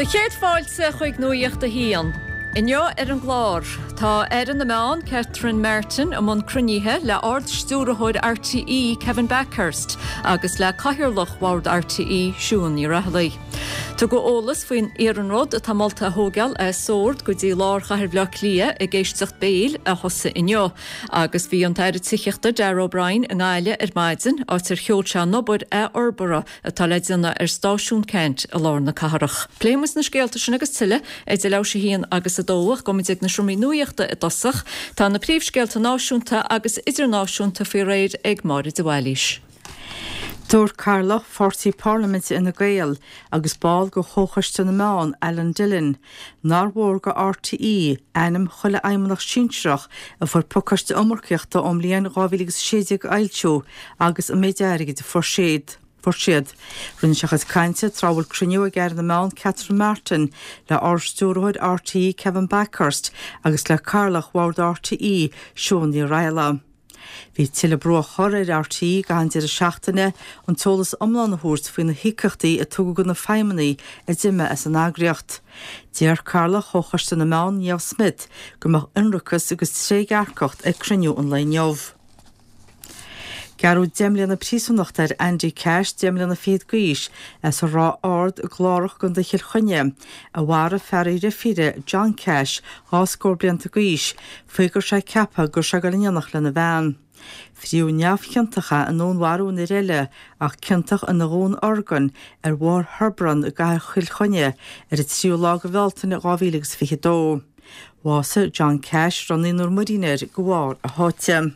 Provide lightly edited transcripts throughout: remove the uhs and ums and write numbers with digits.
Do chéad fáilte chuig Nuacht a hAon. Inniu ar an gclár, tá Aire na Meán, Catherine Martin, i mbun cruinnithe le Ard-Stiúrthóir RTÉ, Kevin Bakhurst, agus le Cathaoirleach Bhord RTÉ, Siún Ní Raghallaigh. Tugadh eolas faoin iarnród atá molta a thógáil as Sord go dtí lár chathair Bhaile Átha Cliath ag éisteacht béil a thosaigh inniu. Agus bhí an tAire Tithíochta Darragh O'Brien i nGaillimh ar maidin, áit ar sheol sé an obair athfhorbartha atá le déanamh ar Stáisiún Ceannt i lár na cathrach. Pléifidh muid na scéalta sin agus tuilleadh idir leathuair théis a haon agus a dó ach gabhfaidh muid ag na seomraí nuachta i dtosach. Tá na príomhscéalta náisiúnta agus idirnáisiúnta faoi réir ag Máire de Bhailís. Dúirt Cathaoirleach Pháirtí Parlaiminte Fhine Gael agus ball de Chomhchoiste na Meán, Alan Dillon, nár mhór do RTÉ ainm chuile fheidhmeannach sinsearach a fuair pacáiste iomarcaíochta ón mbliain 2016 a fhoilsiú agus an méid airgid a fuair siad. Fuair siad. Rinne sé a chuid cainte tráth a bhfuil cruinniú ag Aire na Meán Catherine Martin le Ard-Stiúrthóir RTÉ Kevin Bakhurst agus le Cathaoirleach Bhord RTÉ Siún Ní Raghallaigh. Bhí tuilleadh brú á chur ar RTÉ i gcaitheamh an deireadh seachtaine an t-eolas iomlán a thabhairt faoi na híocaíochtaí a tugadh do na feidhmeannaigh a d'imigh as an eagraíocht. Deir Cathaoirleach Chomhchoiste na Meán, Niamh Smyth, go mbeadh ionracas agus trédhearcacht ag cruinniú an lae inniu. Gearradh 10 mbliana príosúnachta ar Andy Cash, 10 mbliana fichead d'aois, as an Ráth Ard i gClárach i gContae Chill Chainnigh, a mharaigh fear a dheirfíre, John Cash, dhá scór blianta d'aois, faoi go raibh sé ag ceapadh go raibh sé ag dul in éineacht lena bhean. Fríodh neamhchiontach é i ndúnmharú an fhir eile ach ciontach ina dhúnorgain ar Bhóthar Hebron i gcathair Chill Chainnigh ar an tríú lá de Bhealtaine 2022. Bhásaigh John Cash, a raibh naonúr muirín air, de bharr a sháite.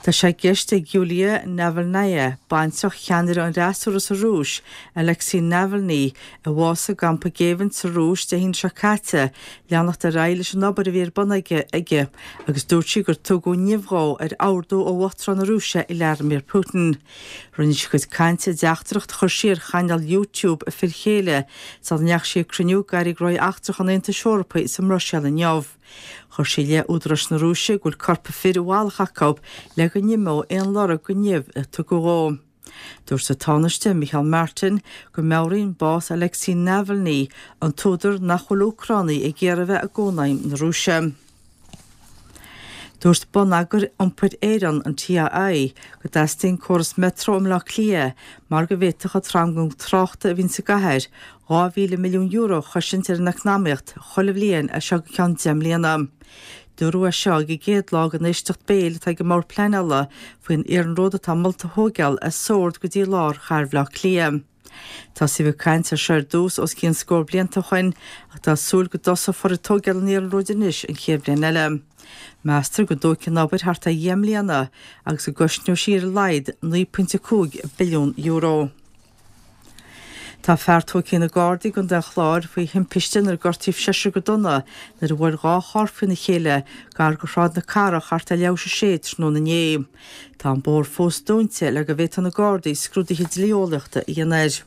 Tá sé i gceist ag Yulia Navalnaya, baintreach cheannaire an fhreasúra sa Rúis, Alexei Navalny, a bhásaigh i gcampa géibhinn sa Rúis Dé haoine seo caite, leanacht ar aghaidh leis an obair a bhí ar bun aici agus dúirt sí gur tugadh nimh dhó ar ordú ó Uachtarán na Rúise Vladimir Putin. Rinne sí a cuid cainte i dteachtaireacht a chuir sí ar chainéal YouTube a fir chéile sula ndeachaigh sí ag cruinniú d'airí gnóthaí eachtracha an Aontais Eorpaigh sa mBruiséil inniu. Chuir sí i leith údaráis na Rúise go bhfuil corp a fir i bhfalach acu le go n-imeodh aon lorg den nimh a tugadh dhó. Dúirt an Tánaiste, Micheál Martin, go meabhraíonn bás Alexei Navalny an t-údar nach bhfuil Úcránaigh ag iarraidh a bheith i gCónaidhm na Rúise. Dúirt Bonneagar Iompair Éireann, an TII, go dteastaíonn córas Metro i mBleá Cliath mar go bhféadfadh an tranglam tráchta a bhíonn sa gcathair €2,000 milliún a chosaint ar an eacnamaíocht chuile bhliain as seo go ceann 10 mbliana. Dúradh é seo ag an gcéad lá den éisteacht béil atá ag an mBord Pleanála faoin iarnród atá molta a thóigeáil as Sord go dtí lár chathair Bhaile Átha Cliath. Tosaíodh ag caint air seo ar dtús os cionn scór blianta ó shoin ach tá súil go dtosófar ag tóigeáil an iarnróid anois an chéad bhliain eile. Meastar go dtógfaidh an obair thart ar dheich mbliana agus go gcosnóidh sí ar a laghad €9.5 billiún. Tá fear tógtha ag na Gardaí i gContae an Chláir faoi thimpiste inar gortaíodh seisear go dona nuair a bhuail dhá charr faoina chéile gar do Shráid na Cathrach thart ar leathuair théis a sé tráthnóna inné. Tá an bóthar fós dúnta le go bhféadfaidh na Gardaí scrúduithe dlí-eolaíochta a dhéanamh air.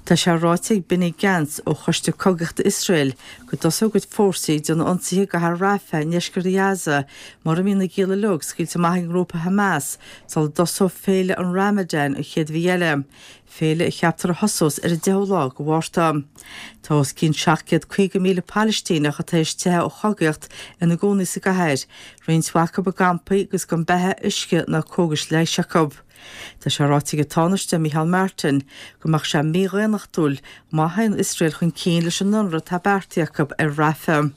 Tá sé ráite ag Benny Gantz ó Choiste Cogaíochta Iosrael go dtosóidh a gcuid fórsaí ag déanamh ionsaithe i gcathair Rafah i ndeisceart Ghaza mura mbíonn na gialla uilig scaoilte amach ag an ngrúpa Hamas sula dtosóidh féile an Ramadan an chéad mhí eile. féile a cheaptar a thosós ar an 10ú lá de Mhárta. Tá os cionn 750,000 Palaistíneach atá théis teitheadh ó chogaíocht ina gcónaí sa gcathair, roinnt mhaith acu i gcampaí agus gan beatha, uisce ná cógais leighis acu. Tá sé ráite ag an Tánaiste Micheál Martin go mbeadh sé mídhaonnachtúil má théann Iosrael chun cinn leis an ionradh atá beartaithe acu ar Rafah.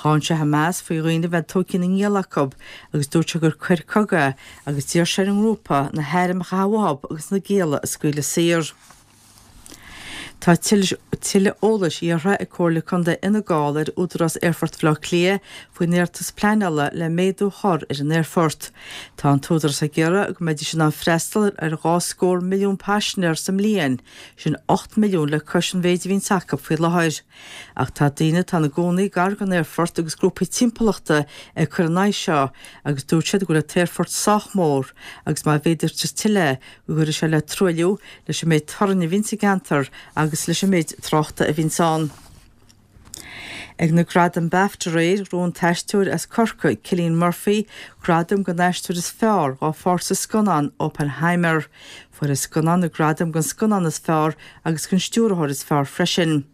Cháin sé Hamas faoi dhaoine a bheith tógtha ina ngialla acu agus dúirt sé gur coir cogaidh é agus d'iarr sé ar an ngrúpa na hairm a chaitheamh uathu agus na gialla a scaoileadh saor. Tá tuilleadh eolais iarrtha ag Comhairle Contae Fhine Gall ar Údarás Aerfort Bhaile Átha Cliath faoin iarratas pleanála le méadú a chur ar an aerfort. Tá an t-údarás ag iarraidh go mbeidís in ann freastal ar dhá scór milliún paisinéir sa mbliain, sin 8 milliún le cois an mhéid a bhíonns acu faoi láthair. Ach tá daoine atá ina gcónaí gar don aerfort agus grúpaí timpeallachta ag cur ina aghaidh seo agus dúirt siad go bhfuil an t-aerfort sách mór agus má mhéadaítear tuilleadh go gcuirfidh sé le truailliú, leis an méid torainn a bhíonn sa gceantar agus leis an méid tráchta a bhíonns ann. Ag na Gradaim Bafta aréir, ghnóthaigh an t-aisteoir as Corcaigh, Cillian Murphy, gradam don aisteoir is fearr dhá pháirt sa scannán Oppenheimer. Fuair an scannán na gradaim don scannán is fearr agus don stiúrthóir is fearr freisin.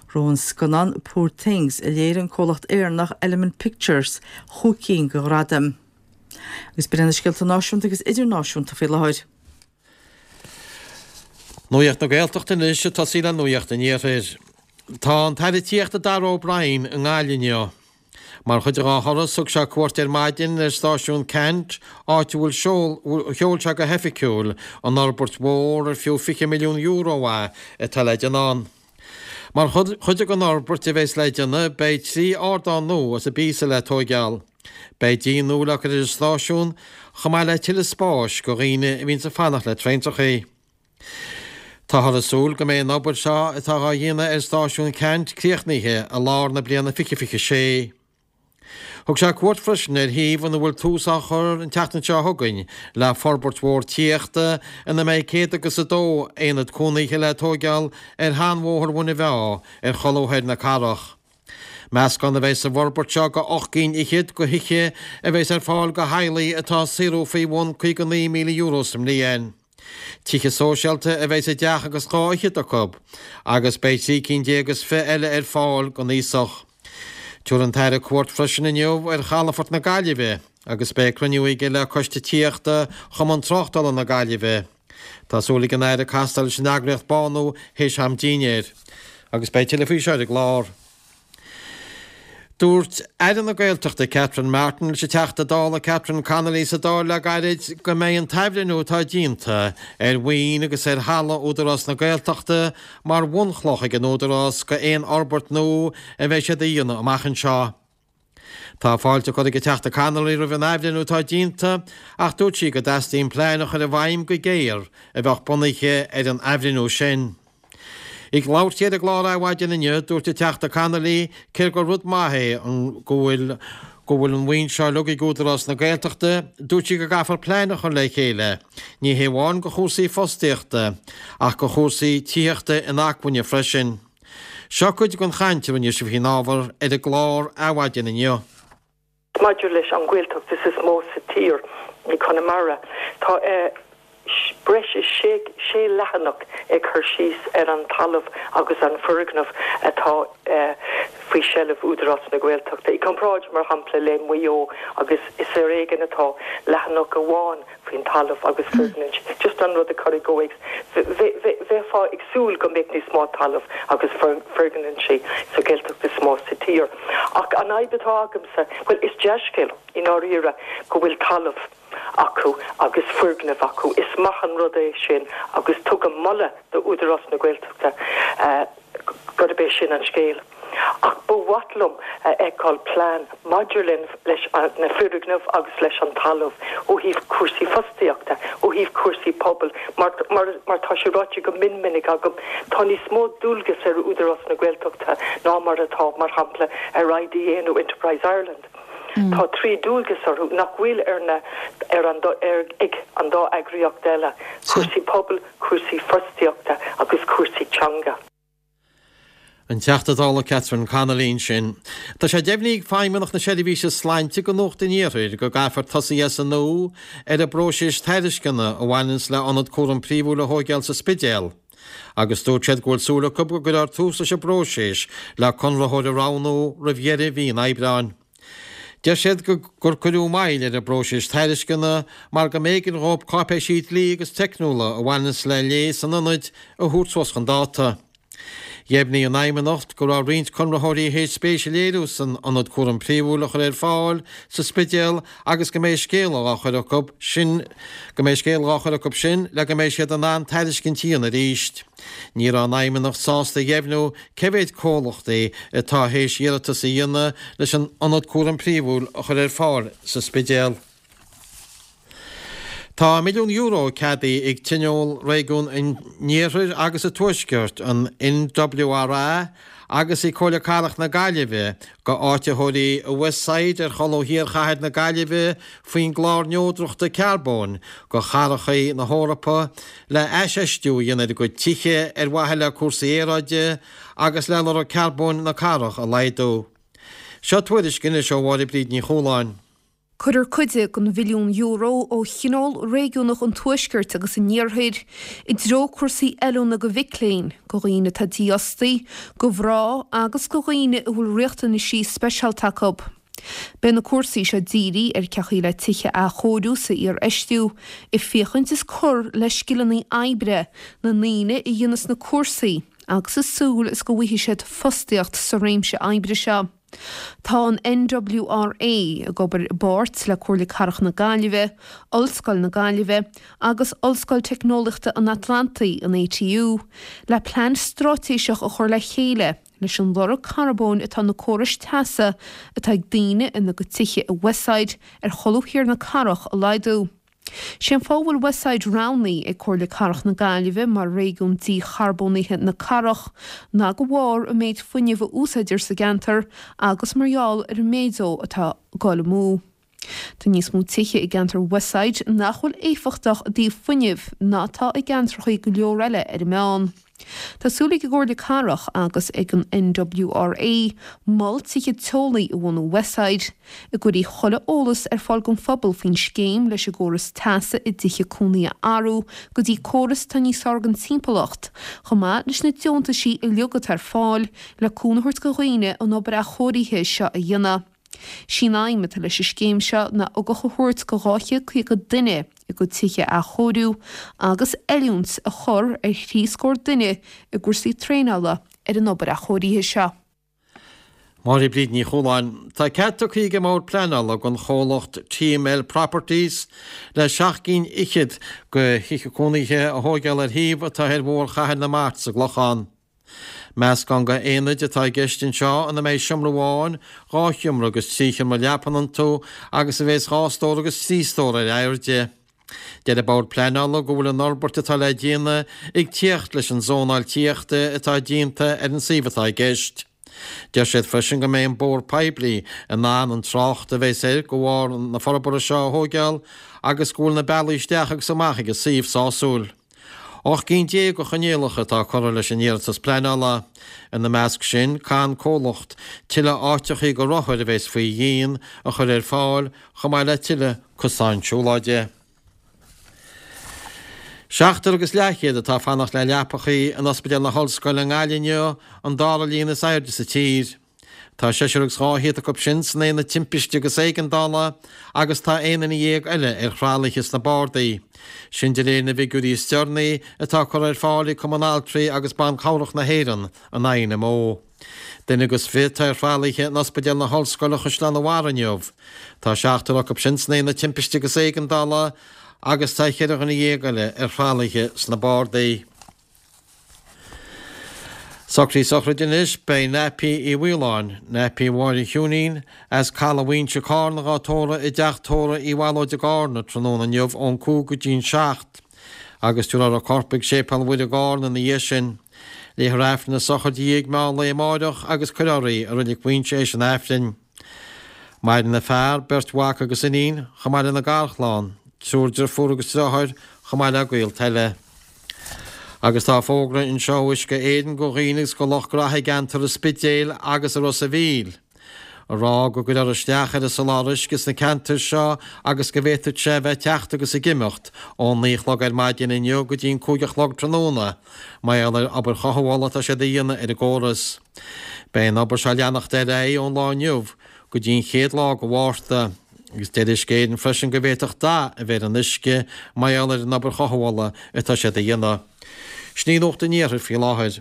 Ghnóthaigh an scannán Poor Things, a léirigh an comhlacht Éireannach Element Pictures, chúig cinn de ghradaim. Agus b'in iad na scéalta náisiúnta agus idirnáisiúnta faoi láthair. Nuacht na Gaeltachta anois ag tosaí le Nuacht an Iarthair. Tá an tAire Tithíochta Darragh O'Brien i nGaillimh inniu. Mar chuid dhá thuras thug sé cuairt ar maidin ar stáisiún Ceannt, áit a bhfuil sheol sé go hoifigiúil an fhorbairt mhór ar fiú €20 milliún é atá le déanamh ann. Mar chuid den fhorbairt a bheas le déanamh beidh 3 ardán nua is an píosa le tóigeáil. Beidh díon nua le cur ar an stáisiún, chomh maith le tuilleadh spáis go dhaoine a bhíonns ag fanacht le traentrachaí. Táthar ag súil go mbeidh an obair seo atá dhá dhéanamh ar stáisiún Ceannt críochnaithe i lár na bliana 2026. Thug sé cuairt freisin ar shuíomh ina bhfuil tús á chur an tseachtain seo chugainn le forbairt mhór tithíochta ina mbeidh céad agus a dó aonad cónaithe le tóigeáil ar sheanbhóthar Mhuine Mheá ar cholbha thoir na cathrach. Meascán a bheidh sa bhforbairt seo go 8 gcinn fhichead go thithe a bheas ar fáil go theaghlaigh atá ag saothrú faoi bhun €59,000 sa mbliain. Tithe sóisialta a bheidh sa dteach agus dhá fhichead acu, agus beidh 13 cinn is 20 eile ar fáil don aosach. Tabharfaidh an tAire cuairt freisin inniu ar chalafort na Gaillimhe agus beidh cruinniú aige le Coiste Tithíochta Chumann Tráchtála na Gaillimhe. Tá súil ag an Aire castáil leis an eagraíocht Bánú théis am dinnéir agus beidh tuilleadh faoi seo ar an gclár. Dúirt Aire na Gaeltachta Catherine Martin leis an Teachta Dála Catherine Connolly sa Dáil le gairid go mbeidh an t-athbhreithniú atá déanta ar mhaoin agus ar thalamh Údarás na Gaeltachta mar bhunchloch ag an Údarás go aon fhorbairt nua a bheidh siad a dhéanamh amach anseo. Tá fáilte curtha ag an Teachta Connolly roimh an athbhreithniú atá déanta ach dúirt sí go dteastaíonn plean a chur i bhfeidhm go géar a bheadh bunaithe ar an athbhreithniú sin. Ag labhairt di ar an gclár Adhmhaidin inniu, dúirt an Teachta Connolly cé gur rud maith é an go bhfuil go bhfuil an mhaoin seo uilig ag Údarás na Gaeltachta, dúirt sí go gcaithfear plean a chur le chéile, ní hé amháin go chúrsaí fostaíochta ach go chúrsaí tithíochta inacmhainne freisin. Seo cuid den chaint a rinne sí faoin ábhar ar an gclár Adhmhaidin inniu. Maidir leis an Ghaeltacht is mó sa tír, i Conamara, tá breis is sé leathanach ag cur síos ar an talamh agus an foirgneamh atá faoi seilbh Údarás na Gaeltachta. I gcomparáid, mar shampla, le Maigh Eo agus is ar éigean atá leathanach amháin faoin talamh agus foirgnimh. Just an rud a chur i gcomhthéacs. Bheifeá ag súil go mbeadh níos mó talamh agus foirgnimh sa Ghaeltacht is mó sa tír. Ach an fhadhb atá agamsa, bhuel, is dea-scéal i ndáiríre go bhfuil talamh acu agus foirgnimh acu. Is maith an rud é sin agus tugaim moladh d'Údarás na Gaeltachta gurb é sin an scéal. Ach ba mhaith liom a fheiceáil plean maidir leis na foirgnimh agus leis an talamh ó thaobh cúrsaí fostaíochta, ó thaobh cúrsaí pobail, mar mar tá sé ráite go mion minic agam, tá níos mó dualgas ar Údarás na Gaeltachta ná mar atá, mar shampla, ar IDA nó Enterprise Ireland. Tá 3 dualgas orthu nach bhfuil ar na ar an ar ag an dá eagraíocht eile, cúrsaí pobail, cúrsaí fostaíochta agus cúrsaí teanga. An Teachta Dála Catherine Connolly ansin. Tá sé deimhnithe ag Feidhmeannacht na Seirbhíse Sláinte go Nuacht an Iarthair go gcaithfear tosaí as an nua ar an bpróiseas tairisceana a bhaineanns le ionad cúram príomhúil a thóigeáil sa Spidéal agus dúirt siad go bhfuil súil acu go gcuirfear tús leis an bpróiseas le conraitheoir a roghnú roimh dheireadh mhí an Aibreáin. Deir siad gur cuireadh moill ar an bpróiseas tairisceana mar go mb'éigean dhóibh cáipéisí dlí agus teicniúla a bhaineanns le léas an ionaid a thabhairt suas chun dáta. Dheimhnigh an Fheidhmeannacht go raibh roinnt conraitheoirí théis spéis a léiriú san ionad cúram príomhúil a chur ar fáil sa Spidéal agus go mbeidh scéala dhá chur acu sin go mbeidh scéala dhá chur acu sin le go mbeidh siad in ann tairiscint a dhéanamh arís. Ní raibh an Fheidhmeannacht sásta a dheimhniú cé mhéid comhlachtaí atá théis iarratas a dhéanamh leis an ionad cúram príomhúil a chur ar fáil sa Spidéal. Tá €1 milliún ceadaithe ag Tionól Réigiún an Iarthair agus an Tuaiscirt, an NWRA, agus ag Comhairle Cathrach na Gaillimhe go áititheoirí i Westside ar cholbha thiar chathair na Gaillimhe faoin gClár Neodrachta Carbóin go Chathracha na hEorpa le haisfheistiú a dhéanamh ar a gcuid tithe ar mhaithe le cúrsaí aeráide agus le lorg carbóin na cathrach a laghdú. Seo tuairisc anois ó Mháire Bríd Ní Chualáin. Cuirfear cuid den bhilliún euro ó Thionól Réigiúnach an Tuaiscirt agus an Iarthair i dtreo cúrsaí oiliúna do mhic léinn, do dhaoine atá dífhostaithe, do mhná agus do dhaoine a bhfuil riachtanaisí speisialta acu. Beidh na cúrsaí seo dírithe ar cén chaoi le tithe a athchóiriú is a iarfheistiú, ag féachaint is cur le scileanna oibre na ndaoine a dhéanas na cúrsaí agus ag súil is go bhfaighidh siad fostaíocht sa réimse oibre seo. Tá an NWRA ag obair i bpáirt le Comhairle Cathrach na Gaillimhe, Ollscoil na Gaillimhe agus Ollscoil Teicneolaíochta an Atlantaigh, an ATU, le plean straitéiseach a chur le chéile leis an lorg carbóin atá na córais teasa atá ag daoine ina gcuid tithe i Westside ar cholbha thiar na cathrach a laghdú. Sé an fáth a bhfuil Westside roghnaithe ag Comhairle Cathrach na Gaillimhe mar réigiún dícharbónaithe na cathrach ná de bharr an méid fuinnimh a úsáidtear sa gceantar agus mar gheall ar an méid dó atá ag dul amú. Tá níos mó tithe i gceantar Westside nach bhfuil éifeachtach i dtaobh fuinnimh ná atá i gceantracha go leor eile ar an meán. Tá súil ag an gComhairle Cathrach agus ag an NWRA mol tithe teolaí a bhunú Westside, a gcuirfidh chuile eolas ar fáil don phobal faoin scéim leis an gcóras teasa i dtithe cónaí a athrú go dtí córas atá níos fearr don timpeallacht, chomh maith leis na deontaisí uilig atá ar fáil le cúnamh a thabhairt do dhaoine an obair athchóirithe seo a dhéanamh. Sí an aidhm atá leis an scéim seo ná ugach a thabhairt do 250 duine a gcuid tithe a athchóiriú agus oiliúint a chur ar thrí scór duine i gcúrsaí traenála ar an obair athchóirithe seo. Máire Bríd Ní Chualáin. Tá cead tugtha ag an mBord Pleanála don chomhlacht TML Properties le seacht gcinn fhichead de thithe cónaithe a thóigeáil ar shuíomh atá ar Bhóthar Chathair na Mart sa gClochán. Meascán de aonaid atá i gceist anseo ina mbeidh seomra amháin, 2 sheomra agus 3 sheomra leapan iontu agus a bheas 2 stór agus 3 stór ar airde. Deir an Bord Pleanála go bhfuil an fhorbairt atá le déanamh ag tíocht leis an zónáil tithíochta atá déanta ar an suíomh atá i gceist. Deir siad freisin go mbeidh an bóthar poiblí in ann an trácht a bheas air de bharr na forbartha seo a thóigeáil agus go bhfuil na bealaí isteach agus amach ag an suíomh sásúil. 18 gcinn de choinníollacha atá curtha leis an iarratas pleanála. Ina measc sin, caithfidh an comhlacht tuilleadh áiteachaí do rothair a bheas faoi dhíon a chur ar fáil, chomh maith le tuilleadh cosáin siúlóide. Seachtar agus leathchéad atá ag fanacht le leapachaí in Ospidéal na hOllscoile i nGaillimh inniu, an dara líon is airde sa tír. Tá seisear agus 200 acu sin san aonad timpiste agus éigeandála agus tá 11 duine eile ar thralaithe sna bardaí. Sin de réir na bhfigiúirí is deireanaí atá curtha ar fáil ag Cumann Altraí agus Ban Cabhrach na hÉireann, an INMO. Duine agus fiche atá ar thralaithe in Ospidéal na hOllscoile Chaisleán an Bharraigh inniu. Tá seachtar acu sin san aonad timpiste agus éigeandála agus tá cheithre dhuine dhéag eile ar thralaithe sna bardaí. Socruithe sochraide anois, beidh Naipí Uí Mhaoláin, Naipí Mháire Chiúinín, as Caladh Mhaínse, Cárna dhá tórramh i dteach tórraimh Uí Bhallóid i gCárna tráthnóna inniu ón 5 go dtí'n 7 agus tabharfar a corp ag Séipéal Mhuire i gCárna ina dhiaidh sin. Léifear Aifreann na sochraide i ndiaidh meán lae amáireach agus cuirfear í i Reilig Mhaínse éis an Aifrinn. Maireann a fear, beirt mhac agus iníon, chomh maith lena garchlann, triúr driofúr agus driotháir, chomh maith le gaolta eile. Agus tá fógra anseo ó Uisce Éireann go dhaoine agus go lucht graithe i gceantar an Spidéil agus i Ros a' Mhíl, a rá go gcuirfear isteach ar an soláthar uisce sna ceantair seo agus go bhféadfadh sé a bheith ag teacht agus ag imeacht ón 9 a chlog ar maidin inniu go dtí an 5 a chlog tráthnóna mar gheall ar obair chothabhála atá siad a dhéanamh ar an gcóras. Beidh an obair seo ag leanacht ar aghaidh ón lá inniu go dtí an chéad lá de Mhárta, agus deir Uisce Éireann freisin go bhféadfadh dath a bheith ar an uisce mar gheall ar an obair chothabhála atá siad a dhéanamh. Sin í Nuacht an Iarthair faoi láthair.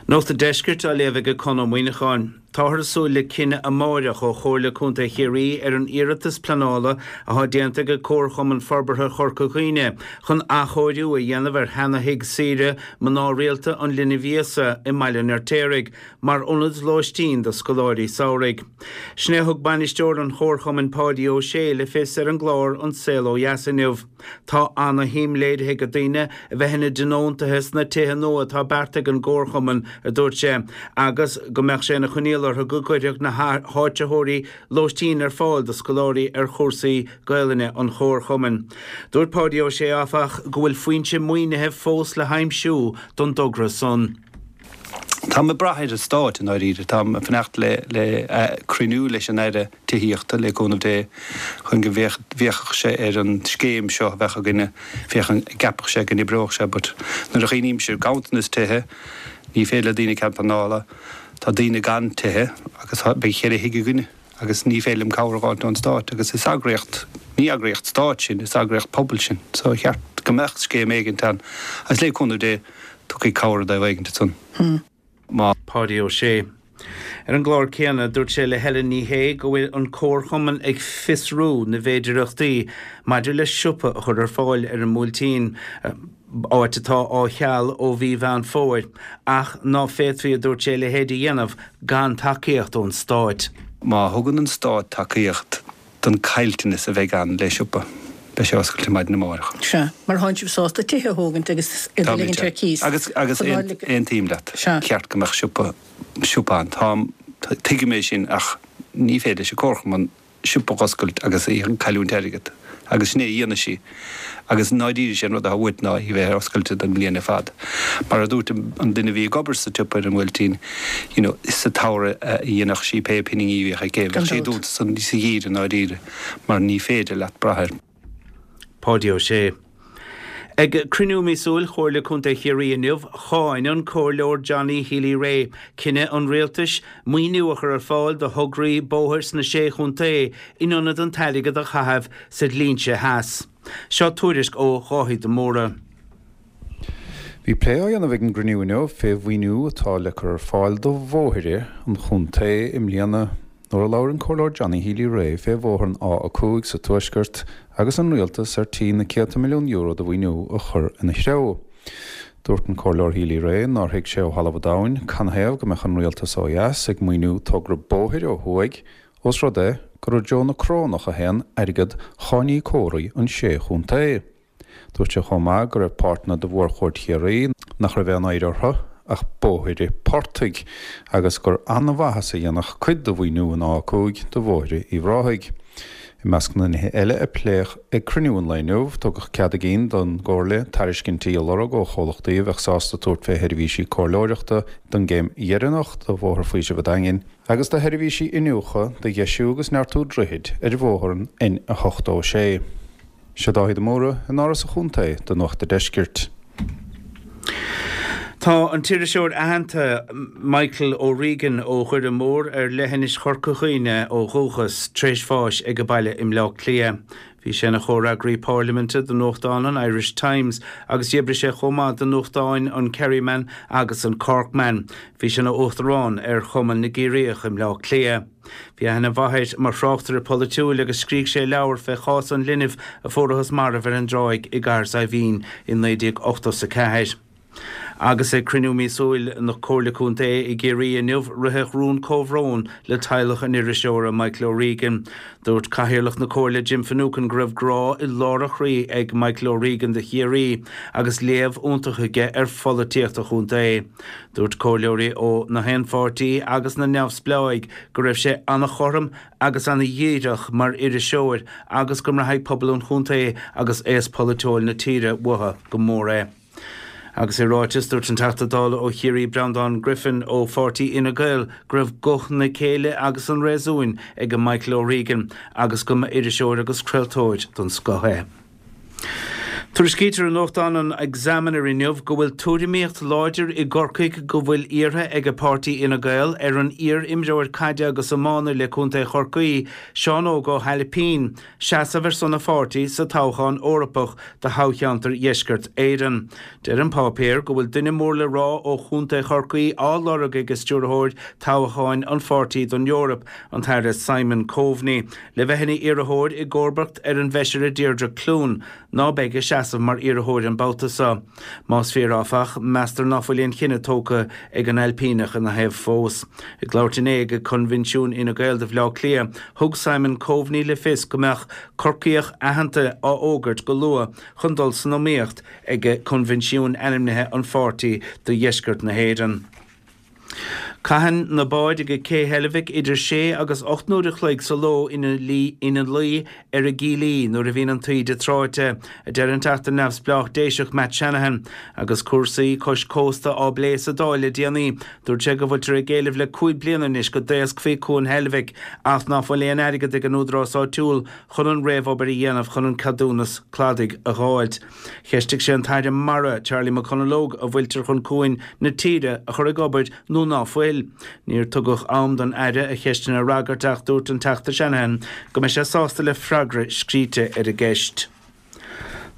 Nuacht an Deiscirt á léamh ag Conn Ó Muíneacháin. Táthar ag súil le cinneadh amáireach ó Chomhairle Contae Chiarraí ar an iarratas pleanála athá déanta ag Comharchumann Forbartha Chorca Dhuibhne chun athchóiriú a dhéanamh ar sheana-thigh saoire mná rialta an Linbh Íosa i mBaile an Fheirtéaraigh mar ionad lóistín do scoláirí samhraidh. Sin é a thug bainisteoir an Chomharchumainn Páidí Ó Sé le fios ar an gclár An Saol Ó Dheas inniu. Tá ana-shuim léirithe ag daoine a bheith ina dtionóntaithe sna tithe nua atá beartaithe ag an gComharchumann, a dúirt sé, agus go mbeadh sé ina choinníoll orthu go gcuirfeadh na háitritheoirí lóistín ar fáil do scoláirí ar chúrsaí Gaelainne an Chomharchumainn. Dúirt Páidí Ó Sé, áfach, go bhfuil foinse maoinithe fós le haimsiú don dtogra san. Táim ag brath ar an Stát i ndáiríre. Táim ag fanacht le le cruinniú leis an Aire Tithíochta, le cúnamh Dé, chun go bhféachfadh sé ar an scéim seo a bheadh againne, féachaint an gceapfadh sé go n-oibreodh sé but nuair a chuimhnímse ar ganntanas tithe, ní féidir le daoine cead pleanála, tá daoine gan tithe agus beidh cheithre thigh againne agus ní féidir liom cabhair a dh'fháilt ón Stát agus is eagraíocht, ní eagraíocht Stáit sinn, is eagraíocht pobail sinn so cheart go mbeadh scéim éigint ann agus le cúnamh Dé tiocfaidh cabhair i dtaobh éigint ansan. Má. Páidí Ó Sé. Ar an gclár céanna, dúirt sé le Helen Ní Shé go bhfuil an comharchumann ag fiosrú na bhféidireachtaí maidir le siopa a chur ar fáil ar an mBuailtín, áit atá á cheal ó mhí Mheán Fómhair, ach ná féadfaí, a dúirt sé, a leithéid a dhéanamh gan tacaíocht ón Stát. Má thugann an Stát tacaíocht don caillteanas a bheidh ann le siopa, beidh sé oscailte maidin amárach. Sea, mar thánn sibh sásta tithe a thógaint agus iad a ligint ar cíos. Agus, agus aontaím leat, cheart go mbeadh siopa, siopa ann. Táim, tuigim é sin ach ní féidir leis an Comharchumann siopa a dh'oscailt agus í ag cailliúint airgead. Agus sin é a dhéanfaidh sí. Agus i ndáiríre sé an rud atá uait ná í bheith ar oscailte don mbliain ar fad. Mar a dúirt an duine a bhí ag obair sa tsiopa ar an mBuailtín, you know, sa tsamhradh a dhéanfadh sí pé pinginí a bhíodh aici, bheadh sí dúnta sa gheimhreadh i ndáiríre mar ní féidir leat brath air. Páidí Ó Sé. Ag cruinniú míosúil Chomhairle Contae Chiarraí inniu, cháin an Comhairleoir Johnny Healy-Rae cinneadh an Rialtais maoiniú a chur ar fáil do thograí bóthair sna Sé Chontae in ionad an t-airgead a chaitheamh sa dlínse theas. Seo tuairisc ó Dháithí de Mórdha. Bhí plé á dhéanamh ag an gcruinniú inniu fé mhaoiniú atá le cur ar fáil do bhóithre an chontae i mbliana. Nuair a labhair an Comhairleoir Johnny Healy-Rae fé bhóthar an A5 sa Tuaisceart agus an Rialtas ar tí na céadta milliún euro de mhaoiniú a chur ina threo. Dúirt an Comhairleoir Healy-Rae nár thuig sé ó thalamh an domhain canathaobh go mbeadh an Rialtas ó dheas ag maoiniú togra bóthair ó thuaidh ós rud é gur i dtreo na Corónach a théann airgead cháiníocóirí an sé chontae. Dúirt sé chomh maith go raibh páirteanna de mhórchuaird Chiarraí nach raibh aon oidhre orthu ach bóithre portaigh agus gur an-mhaitheas a dhéanfadh cuid de mhaoiniú an A5 do bhóithre Uíbh Ráthaigh. I measc na nithe eile a pléadh ag cruinniú an lae inniu, tugadh cead a gcinn don gComhairle tairiscintí a lorg ó chomhlachtaí a bheadh sásta tabhairt fé sheirbhísí comhairleoireachta don gcéim dheireanach de Bhóthar Faoisimh an Daingin agus do sheirbhísí iniúchadh do dheisiú agus neartú droichid ar bhóthar an N86. Seo Dáithí de Mórdha in Áras an Chontae do Nuacht a' Deiscirt. Tá an t-iriseoir aitheanta Michael O'Regan ó Dhoire Mór ar leithinis Chorca Dhuibhne ó dhúchas, tar éis bháis ag a baile i mBleá Cliath. Bhí sé ina chomhfhreagraí pairliminte do nuachtán an Irish Times agus d'oibrigh sé chomh maith do nuachtáin an Kerryman agus an Corkman. Bhí sé ina uachtarán ar Chumann na gCiarraíoch i mBleá Cliath. Bhí aithne mhaith air mar thráchtaire polaitiúil agus scrígh sé leabhar fé chás an linbh a fuarathas marbh ar an dtráigh i gCathair Saidhbhín i 1984. Agus ag cruinniú míosúil na Comhairle Contae i gCiarraí inniu, ritheadh rún comhbhróin le teaghlach an iriseora Michael O'Regan. Dúirt Cathaoirleach na Comhairle Jim Finucane go raibh grá i lár a chroí ag Michael O'Regan do Chiarraí agus léamh iontach aige ar pholaitíocht an chontae. Dúirt comhairleoirí ó na haon pháirtí agus na neamhspleáigh go raibh sé an-chothrom agus an-dhíreach mar iriseoir agus go mbraithfidh pobal an chontae agus aos polaitiúil na tíre uathu go mór é. Agus i ráiteas, dúirt an Teachta Dála ó Chiarraí Breandán Griffin ó pháirtí Fhine Gael go raibh guth na céille agus an réasúin ag Michael O'Regan agus go mba iriseoir agus craoltóir den scoth é. Tuairiscítear i nuachtán an Examiner inniu go bhfuil tuairimíocht láidir i gCorcaigh go bhfuil iarrtha ag páirtí Fhine Gael ar an iar-imreoir caide agus iomána le Contae Chorcaí, Seán Óg Ó hAilpín, seasamh ar son a pháirtí sa toghchán Eorpach do thoghcheantar Dheisceart Éireann. Deir an páipéar go bhfuil duine mór le rá ó Chontae Chorcaí á lorg ag stiúrthóir toghcháin an pháirtí don Eoraip, an tAire Simon Coveney. Le bheith ina iarrthóir i gcomharbacht ar an bhFeisire Deirdre Clune, ná beidh ag seasamh mar iarrthóir an babhta seo. Más fíor áfach, meastar ná fuil aon chinneadh tógtha ag an Ailpíneach ina thaobh fós. Ag labhairt inné ag Coinbhinsiún Fhine Gael do Bhleá Cliath, thug Simon Coveney le fios go mbeadh Corcaíoch aitheanta á fhógairt go luath chun dul san iomaíocht ag coinbhinsiún ainmnithe an pháirtí do dheisceart na hÉireann. Caitheann na báid ag Cé Heilbhic idir sé agus 8 n-uair a chloig sa ló ina luí ar a gcílí nuair a bhíonn an taoide tráite, a deir an Teachta Neamhspleách Déiseach Matt Shanahan. Agus cúrsaí cois cósta á bplé sa Dáil le déanaí, dúirt sé go bhfuiltear ag éileamh le 5 bliana anois go dtaoscfaí Cuan Heilbhic ach ná fuil aon airgead ag an údarás áitiúil chun an réamhobair a dhéanamh chun an ceadúnas cladaigh a dh'fháilt. Cheistigh sé an tAire Mara, Charlie McConalogue, an bhfuiltear chun cuain na tíre a chur ag obair nó ná fuil. Níor tugadh am don Aire a cheisteanna a fhreagairt ach dúirt an Teachta Shanahan go mbeidh sé sásta le freagra scríte ar an gceist.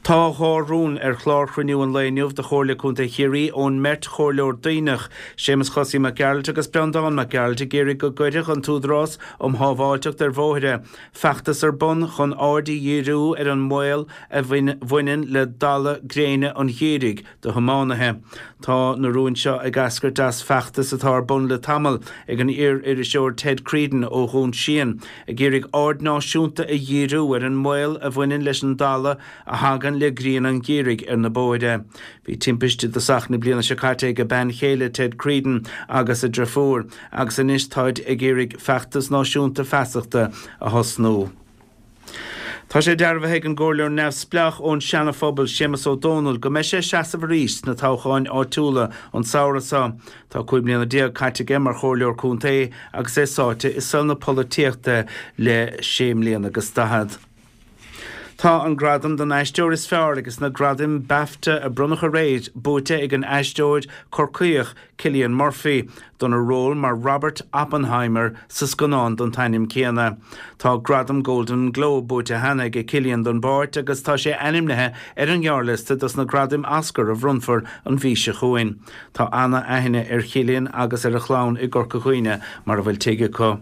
Tá dhá rún ar chlár chruinniú an lae inniu de Chomhairle Contae Chiarraí ón mbeirt chomhairleoir Duibhneach, Séamus Chosaí Mac Gearailt agus Breandán Mac Gearailt ag iarraidh go gcuirfeadh an tÚdarás um Shábháilteacht ar Bhóithre feachtas ar bun chun aird a dhíriú ar an mbaol a bhaineann le dalladh gréine an gheimhridh do thiománaithe. Tá na rúin seo ag eascairt as feachtas atá ar bun le tamall ag an iar-iriseoir Ted Creedon ó Dhún Síon, ag iarraidh aird náisiúnta a dhíriú ar an mbaol a bhaineann leis an dalladh a thagann le grian an gheimhridh ar na bóithre. Bhí timpiste i dtosach na bliana seo caite ag a bean chéile Ted Creedon agus a driofúr, agus anois táid ag iarraidh feachtas náisiúnta feasachta a thosnú. Tá sé dearbhaithe ag an gComhairleoir Neamhspleách ón Seana-Phobal, Séamus Ó Dónaill, go mbeidh sé ag seasamh arís sna toghcháin áitiúla an samhradh seo. Tá 15 mbliana caite aige mar Chomhairleoir Contae agus é sáite i saol na polaitíochta le sé mbliana agus daichead. Tá an gradam don aisteoir is fearr ages na gradaim Bafta a bronnadh aréir buaite ag an aisteoir Corcaíoch Cillian Murphy dona ról mar Robert Oppenheimer sa scannán den t-ainm céanna. Tá gradam Golden Globe buaite cheana aige Cillian don bpáirt agus tá sé ainmnithe ar an ngearrliosta dos na gradaim Oscar a bhronnfar an mhí seo chugainn. Tá ana-aithne ar Chillian agus ar a chlann i gCorca Dhuibhne mar a bhfuil tigh acu.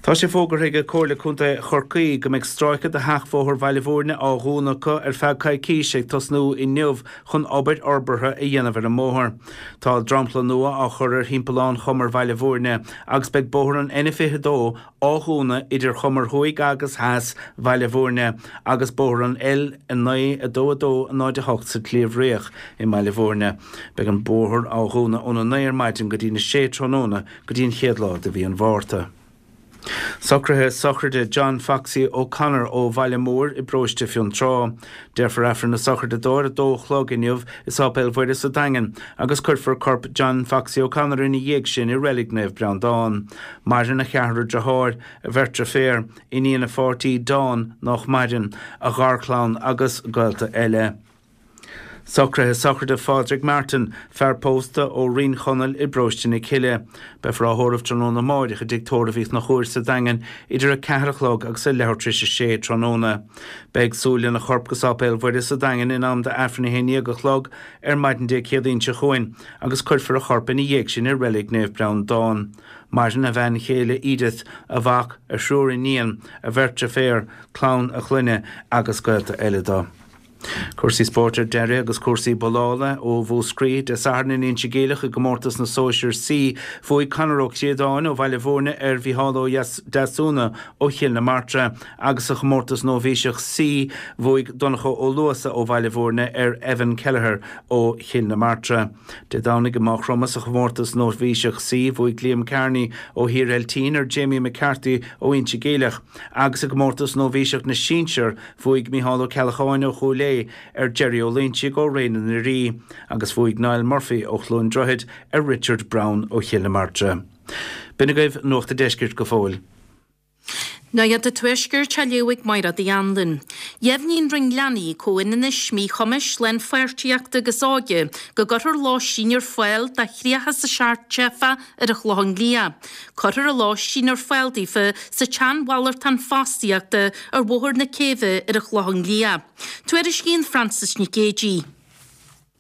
Tá sé fógartha ag Comhairle Contae Chorcaí go mbeidh stráice de sheachbhóthar Bhaile Bhúirne á dhúnadh acu ar feadh coicíse ag tosnú inniu chun obair fhorbartha a dhéanamh ar an mbóthar. Tá dromchla nua á chur ar thimpeallán Chumar Bhaile Bhúirne agus beidh bóthar an N22 á dhúnadh idir Chumar Thuaidh agus Theas Bhaile Bhúirne agus bóthar an L9 2 2 0 8 sa tSliabh Riach i mBaile Bhúirne. Beidh an bóthar á dhúnadh óna 9 ar maidin go dtína 6 tráthnóna go dtí an chéad lá de mhí an Mhárta. Socruithe sochraide John Foxy O'Connor ó Bhaile Móir i bparóiste Fionntrá. Déarfar Aifreann na sochraide dó ar a dó a chlog inniu i Sáipéal Mhuire sa Daingean agus cuirfear corp John Foxy O'Connor ina dhiaidh sin i Reilig Naomh Breandán. Maireann a cheathrar deartháir, a bheirt deirféar, iníon a pháirtí Dawn, nách maireann, a gharchlann agus gaolta eile. Socruithe sochraide Phádraig Martin, fear pósta ó Rinn Chonaill i bparóiste na Cille. Beifear á thórramh tráthnóna amáireach i dTigh Tórraimh Uí Chonchúir sa Daingean idir 4 a chlog agus a leathuair tar éis a sé tráthnóna. Beidh súil lena chorp go Sáipéal Mhuire sa Daingean in am d'Aifreann 11 a chlog ar maidin Dé Céadaoin seo chugainn agus cuirfear a chorp ina dhiaidh sin i Reilig Naomh Breandán. Maireann a bhean chéile Edith, a mhac, a thriúr iníon, a bheirt deirféar, clann a chlainne agus gaolta eile dó. Cúrsaí spóirt ar deireadh agus cúrsaí bollála ó Mhúscraí. Dé Sathairn in Inse Geimhleach i gcomórtas na Sóisear C, bhuaigh Conor Ó Críodáin ó Bhaile Bhúirne ar Mhícheál Ó Deasúna ó Chill na Martra agus sa chomórtas Nóibhíseach C, bhuaigh Donncha Ó Luasa ó Bhaile Bhúirne ar Evan Kelleher ó Chill na Martra. Dé Domhnaigh i Maigh Chromtha sa chomórtas Nóibhíseach C, bhuaigh Liam Kearney ó Thír Eiltín ar Jamie McCarthy ó Inse Geimhleach agus i gcomórtas Nóibhíseach na Sinsear, Bhuaigh Micheál Ó Ceallacháin ó Chúil Aodha ar Jerry Ó Loinsigh ó Ré na nDoirí agus bhuaigh Niall Murphy ó Chluain Droichid ar Richard Browne ó Chill na Martra. B'in agaibh Nuacht a' Deiscirt go fóill. Nuacht an Tuaiscirt á léamh ag Mairéad Uí Anluain. Dheimhnigh an Roinn Leanaí, Comhionannais, Míchumais, Lánpháirtíochta agus Óige go gcuirfear lóistín ar fáil do 37 teifeach ar an Chlochán Liath. Cuirfear an lóistín ar fáil daofa sa tsean-mhalartán fostaíochta ar Bhóthar na Céibhe ar an Chlochán Liath. Tuairiscíonn Frances Nic Géadaigh.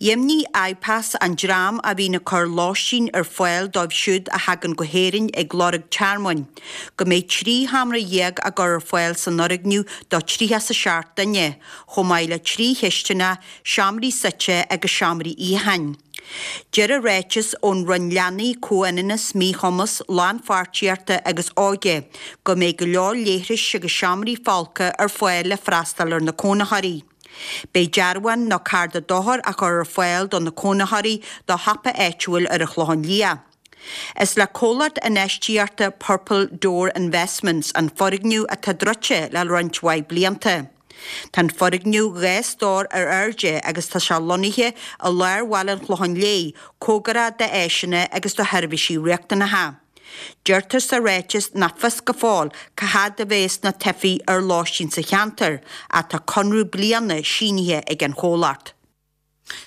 Dheimhnigh IPAS, an dream a bhíonn ag cur lóistín ar fáil dóibh siúd a thagann go hÉirinn ag lorg tearmainn, go mbeidh 13 sheomra á gcur ar fáil san fhoirgneamh do 37 duine, chomh maith le 3 chistineach, seomraí suite agus seomraí itheacháin. Deir an ráiteas ón Roinn Leanaí, Comhionannas, Míchumas, Lánpháirtíochta agus Óige go mbeidh go leor leithris agus seomraí folctha ar fáil le freastal ar na cónaitheoirí. Beidh dearbhán nó cárta dochair á chur ar fáil do na cónaitheoirí do shiopa áitiúil ar an Chlochán Liath. Is le comhlacht infheistíochta Purple Door Investments an foirgneamh atá druidte le roinnt mhaith blianta. Tá an foirgneamh 2 stór ar airde agus tá sé lonnaithe i lár bhaile an Chlocháin Léith, cóngarach d'áiseanna agus do sheirbhísí riachtanacha. Deirtear sa ráiteas nach fios go fóill cá fhad a bheas na teifigh ar lóistín sa cheantar ach tá conradh bliana sínithe ag an chomhlacht.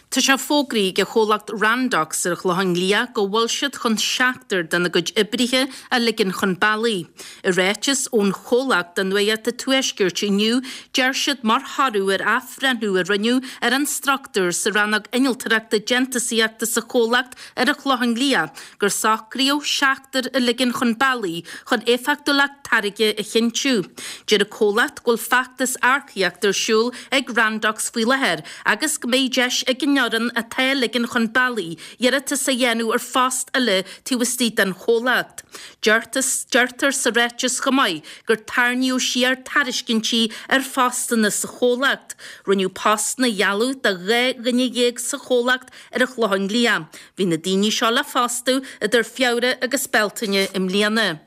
Tá sé fógraithe ag an chomhlacht Randox ar an Chlochán Liath go bhfuil siad chun seachtar dena gcuid oibrithe a ligean chun bealaigh. I ráiteas ón chomhlacht do Nuacht an Tuaiscirt inniu, deir siad mar thoradh ar athbhreithniú a rinneadh ar an struchtúr sa rannóg innealtóireachta déantúsaíochta sa chomhlacht ar an Chlochán Liath gur socraíodh seachtar a ligean chun bealaigh chun éifeachtúlacht táirge a chinntiú. Deir an comhlacht go bhfuil feachtas earcaíochta ar siúl ag Randox faoi láthair agus go mbeidh deis ag an fhoireann atá á ligean chun bealaigh iarratas a dhéanamh ar phost eile taobh istigh den chomhlacht. Deirtear sa ráiteas chomh maith gur tarraingíodh siar tairiscintí ar phostanna sa chomhlacht. Rinneadh postanna a ghealladh do 12 dhuine sa chomhlacht ar an Chlochán Liath. Bhí na daoine seo le fostú idir Feabhra agus Bealtaine i mbliana.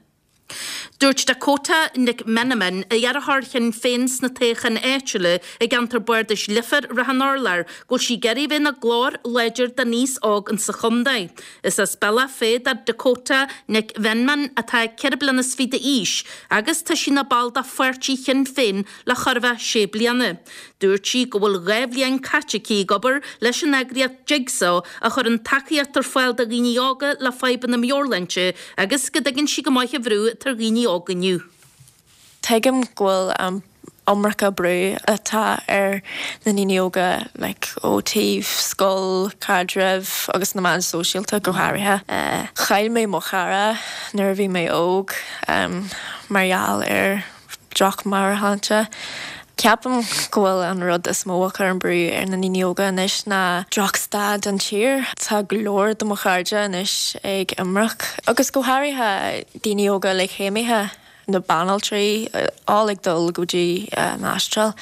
Dúirt Dakota Nic Mheanman, iarrthóir Shinn Féin sna toghcháin áitiúla i gceantar bardais Leifear Ráth an Urláir, go bhfuil sí ag iarraidh a bheith ina glór láidir don aos óg insa chontae. Is as Bealach Féich do Dakota Nic Mheanman atá 24 bliana d'aois agus tá sí ina ball de pháirtí Shinn Féin le chóir a bheith sé bliana. Dúirt sí go bhfuil 2 bhliain caite aici ag obair leis an eagraíocht Jigsaw a chuireann tacaíocht ar fáil do dhaoine óga le fadhbanna meabhairshláinte agus go dtuigeann sí go maith an bhrú atá ar dhaoine óga inniu. Tuigim go bhfuil an iomarca brú atá ar na ndaoine óga like ó taobh scoil, caidrimh agus na meáin sóisialta go háirithe. Chaill mé mo chara nuair a bhí mé óg mar gheall ar droch-mheabhairshláinte. Ceapaim go bhfuil an rud is mó a chuireann brú ar na ndaoine óga anois ná drochstaid an tír. Tá go leor de mo chairde anois ag imirce, agus go háirithe daoine óga like céimithe, na banaltraí, all ag dul go dtí an Astráil.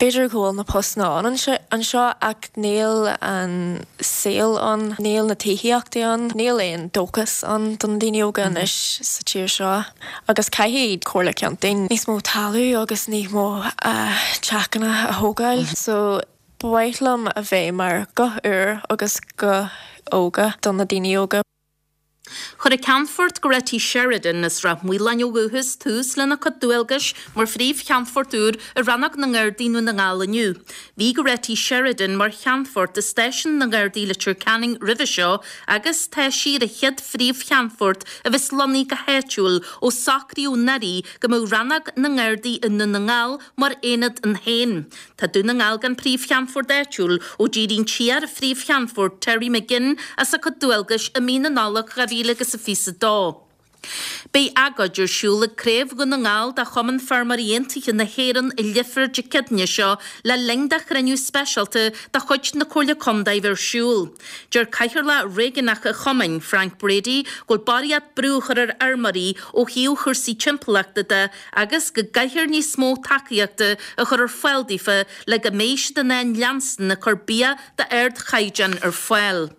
B'fhéidir go bhfuil na postanna ann anseo ach níl an saol ann, níl na tithíochtaí ann, níl aon dóchas ann do na daoine óga anois sa tír seo. Agus caithfidh Comhairle Contae níos mó talamh agus níos mó teachanna a thógáil. So ba mhaith liom a bheith mar guth úr agus guth óga do na daoine óga. Chuir an Ceannfort Goretti Sheridan as Ráth Maoláin ó dhúchas tús lena cuid dualgais mar Phríomh-Cheannfort úr i Rannóg na nGardaí i nDún na nGall inniu. Bhí Goretti Sheridan mar Cheannfort i Stáisiún na nGardaí Leitir Ceanainn roimhe seo agus tá sí ar an chéad Phríomh-Cheannfort a bheas lonnaithe go háitiúil ó socraíodh anuraidh go mbeadh Rannóg na nGardaí i nDún na nGall mar aonad ann féin. Tá Dún na nGall gan Príomh-Cheannfort áitiúil ó d'éirigh an t-iar-Phríomh-Cheannfort Terry McGinn as a cuid dualgais i mí na Nollag 2022. Beidh agóid ar siúl ag Craobh Dhún na nGall de Chumann Feirmeoirí Aontaithe na hÉireann i Leifear Dé Céadaoine seo le linn do chruinniú speisialta de chuid na Comhairle Contae bheith ar siúl. Deir Cathaoirleach Réigiúnach an Chumainn, Frank Brady, go bhfuil barraíocht brú á chur ar fheirmeoirí ó thaobh chúrsaí timpeallachta de agus go gcaithfear níos mó tacaíochta a chur ar fáil daofa le go mbeidh siad in ann leanstan ag cur bia d'ardchaighdeán ar fáil.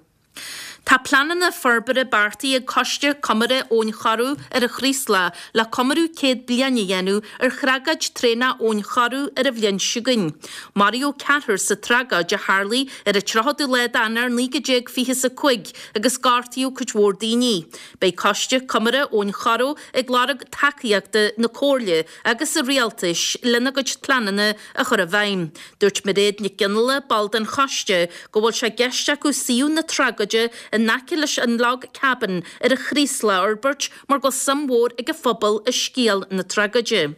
Tá pleananna forbartha beartaithe ag Coiste Comórtha Abhainn Choireadh ar an Chraoslach le comóradh 100 bliain a dhéanamh ar thragóid traenach Abhainn Choireadh ar an bhliain seo chugainn. Maraíodh ceathrar sa tragóid a tharlaigh ar an 30ú lá d'Eanáir 1925 agus gortaíodh cuid mhór daoine. Beidh Coiste Comórtha Abhainn Choireadh ag lorg tacaíochta na Comhairle agus an Rialtais lena gcuid pleananna a chur i bhfeidhm. Dúirt Mairéad Nic Fhionnghaile, ball den choiste, go bhfuil sé i gceist acu suíomh na tragóide in aice leis an Log Cabin ar an Chraoslach a fhorbairt mar go bhfuil suim mhór ag an phobal i scéal na tragóide.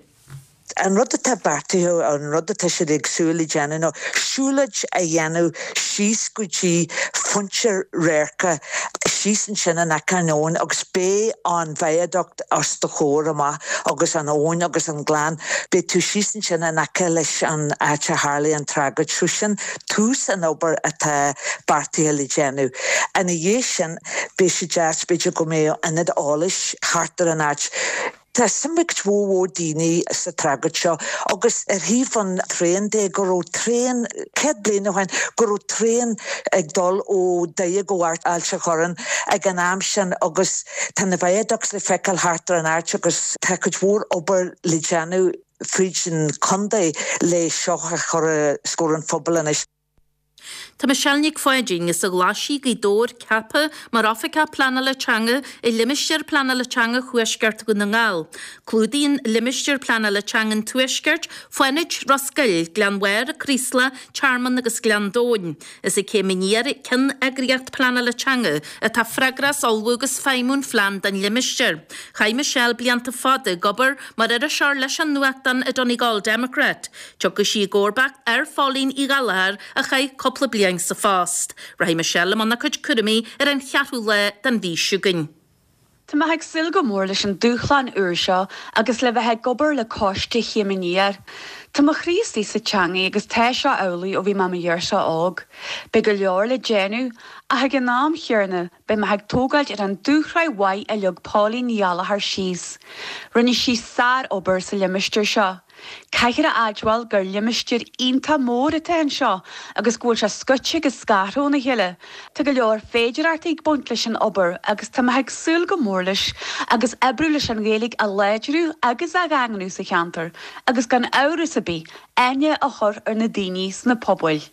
An rud atá beartaithe, an rud atá siad ag súil le déanamh ná siúlóid a dhéanamh síos go dtí pointe radhairce síos ansin in aice an abhainn agus beidh an viaduct os do chomhair amach agus an abhainn agus an gleann. Beidh tú síos ansin in aice leis an áit a tharlaigh an tragóid. So sin tús an obair atá beartaithe le déanamh. Ina dhiaidh sin, beidh sé deas b'fhéidir go mbeadh ionad eolais thart ar an áit. Tá suim ag cuid mhór mhór daoine sa tragóid seo agus ar thaobh an traein de, go raibh traein, 100 bliain ó shin, go raibh traein ag dul ó Doire go Ailt an Chorráin ag an am sin agus tá na viaducts le feiceáil thart ar an áit agus tá cuid mhór obair le déanamh fríd an chontae le seo a chur os comhair an phobail anois. Tá Michelle Nic Pháidín as an Ghlaisigh, Gaoth Dobhair, ceaptha mar Oifigeach Pleanála Teanga i Limistéar Pleanála Teanga Thuaisceart Dhún na nGall. Clúdaíonn Limistéar Pleanála Teanga an Tuaiscirt, Fánaid, Ros Goill, Gleann Bharr, Creeslough, Tearmann agus Gleann Domhain. Is ag Céim Aniar, ceanneagraíocht pleanála teanga, atá freagrach as ullmhú agus feidhmiú an phlean don limistéar. Chaith Michelle blianta fada ag obair mar iriseoir leis an nuachtán an Donegal Democrat. Tiocfaidh sí i gcomharbacht ar Phóilín Uí Ghallchóir a chaith cúpla bliain sa phost. Rachaidh Michelle i mbun a cuid cúraimí ar an cheathrú lá den mhí seo chugainn. Tá mé ag súil go mór leis an dúshlán úr seo agus le bheith ag obair le coiste Chéim Aniar. Tá mo chroí istigh sa teangaidh agus tá seo amhlaidh ó bhí mé i mo ghirseach óg. Beidh go leor le déanamh ach ag an am chéanna beidh mé ag tógáilt ar an dúshraith mhaith a leag Póilín Ní Ghallchóir síos. Rinne sí sár-obair sa limistéar seo. Caithfear a admháil gur limistéar iontach mór atá anseo agus go bhfuil sé scoite agus scartha óna chéile. Tá go leor féidearthachtaí ag baint leis an obair agus tá mé ag súil go mór leis agus oibriú leis an Ghaeilge a láidriú agus a dhaingniú sa cheantar agus gan amhras ar bith aithne a chur ar na daoine sna pobail.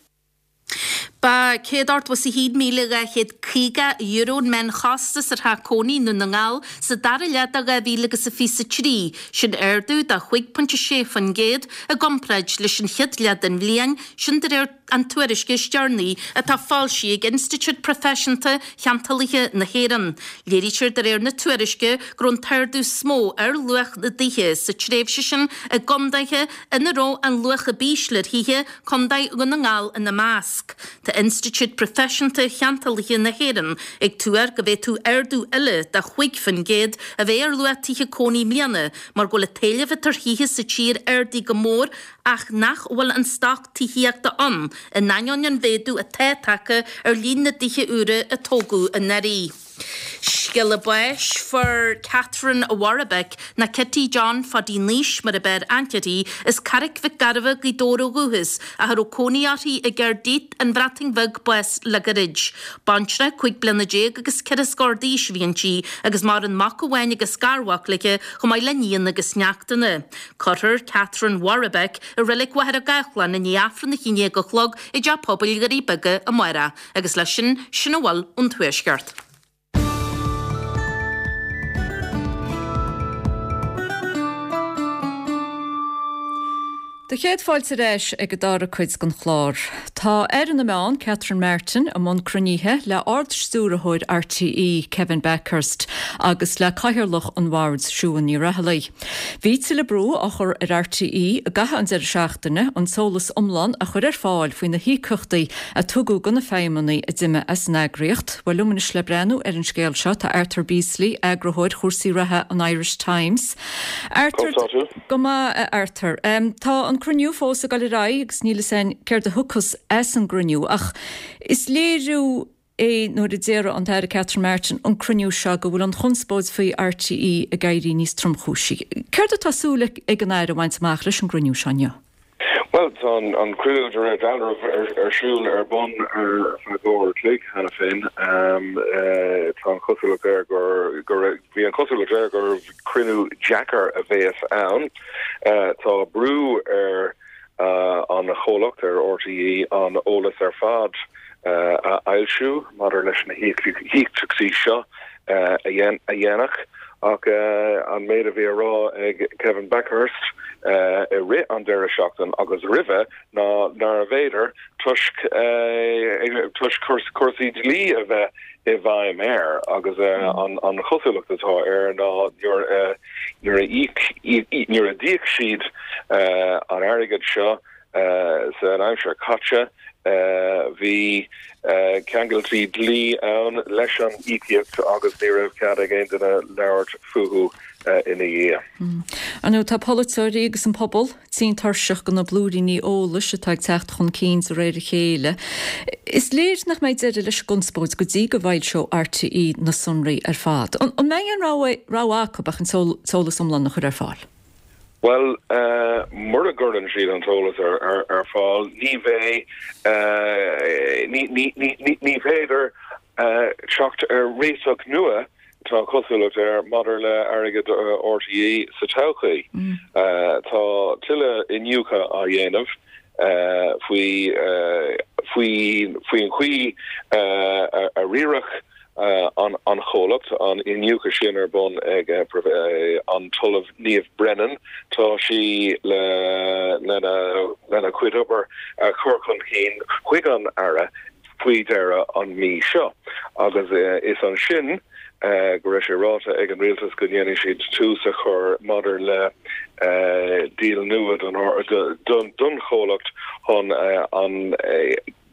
Ba €181,250 an meánchostas ar theach cónaí i nDún na nGall sa dara leath de 2023, sin ardú de 5.6% i gcomparáid leis an chéad leath den bhliain, sin de réir an tuairisce is deireanaí atá foilsithe ag Institiúid Proifisiúnta Cheantálaithe na hÉireann. Léirítear de réir na tuairisce go raibh an t-ardú is mó ar luach na dtithe sa tréimhse sin i gcontaetha ina raibh an luach ab ísle ar thithe, Contae Dhún na nGall ina measc. Tá Institiúid Proifisiúnta Cheantálaithe na hÉireann ag tuar go bhféadfadh ardú eile de 5% a bheith ar luach tithe cónaí i mbliana mar go bhfuil an t-éileamh atá ar thithe sa tír ardaithe go mór ach nach bhfuil an stoc tithíochta ann in ainneoin an mhéadú atá tagtha ar líon na dtithe úra a tógadh anuraidh. Scéala báis, Fuair Catherine Warbeck, nó Kitty John Phaidí Naois mar ab fhearr aithne uirthi, as Carraic Mhic Gairbheith, Gaoth Dobhair ó dhúchas, ach a raibh cónaí uirthi i gCaerdydd, an Bhreatain Bheag, bás le gairid. Baintreach 15 bliana agus ceithre scór d'aois a bhí inti agus maireann mac amháin agus garmhac léi chomh maith le níon agus neachtanna. Cuirfear Catherine Warbeck i Reilig Mhachaire Gathlán i ndiaidh Aifreann a 11 a chlog i dTeach Pobail Dhoirí Beaga amárach. Agus leis sin, sin a bhfuil ón Tuaisceart. Do chéad fáilte ar ais ag an dara cuid den chlár. Tá Aire na Meán, Catherine Martin, i mbun cruinnithe le Ard-Stiúrthóir RTÉ, Kevin Bakhurst, agus le Cathaoirleach an Bhoird, Siún Ní Raghallaigh. Bhí tuilleadh brú á chur ar RTÉ i gcaitheamh an deireadh seachtaine an t-eolas iomlán a chur ar fáil faoi na híocaíochtaí a tugadh do na feidhmeannaigh a d'imigh as an eagraíocht. Bhuel, liom anois le breathnú ar an scéal seo tá Arthur Beesley, eagarthóir chúrsaí reatha an Irish Times. Arthur, Go maith, a Arthur. Tá an cruinniú fós ag dul ar aghaidh agus níl fhios againn céard a thiocfas as an gcruinniú ach is léiriú é nuair a déarfadh an tAire Catherine Martin an cruinniú seo go bhfuil an chonspóid faoi RTÉ ag éirí níos tromchúisí. Céard atá súil ag an Aire a bhaint amach leis an gcruinniú seo inniu? Bhuel, tá an cruinniú de réir dealraimh ar siúl ar bun ar feadh uair a chloig cheana féin. Tá an chosúlacht air gur, bhí an chosúlacht air gur cruinniú deacair a bheas ann. Tá brú ar an chomhlacht, ar RTÉ, an eolas ar fad a fhoilsiú maidir leis na híocaíochtaí seo a dhéanamh ach an méid a bhí á rá ag Kevin Bakhurst i rith an deireadh seachtain agus roimhe ná nárbh fhéidir toisc toisc cúrsaí dlí a bheith i bhfeidhm air agus an chosúlacht atá air ná nuair a nuair a d'íoc siad an airgead seo. San aimsir caite, bhí ceangailtí dlí ann leis an íocaíocht agus ní raibh cead ag aon duine labhairt fúthu ina dhiaidh. Ar ndóigh, tá polaiteoirí agus an pobal tinn tuirseach de na blúiríní eolais atá ag teacht chun cinn de réir a chéile. Is léir nach mbeidh deireadh leis an gconspóid go dtí go bhfoilseoidh RTÉ na sonraí ar fad. An mbeidh aon rogha acu ach an t-eolas iomlán a chur ar fáil? Bhuel, mura gcuireann siad an t-eolas ar fáil, ní bheidh, ní féidir teacht ar réiteach nua, tá an chosúlacht air, maidir le airgead RTÉ sa todhchaí. Tá tuilleadh iniúchadh á dhéanamh faoi faoin chaoi a riaradh an chomhlacht, an iniúchadh sin ar bun ag an tOllamh Niamh Brennan. Tá sí lena cuid obair a chur chun cinn chuig an Aire faoi dheireadh an mí seo agus is ansin go raibh sé ráite ag an Rialtas go ndéanfaidh siad tús a chur maidir le díol nua don chomhlacht chun an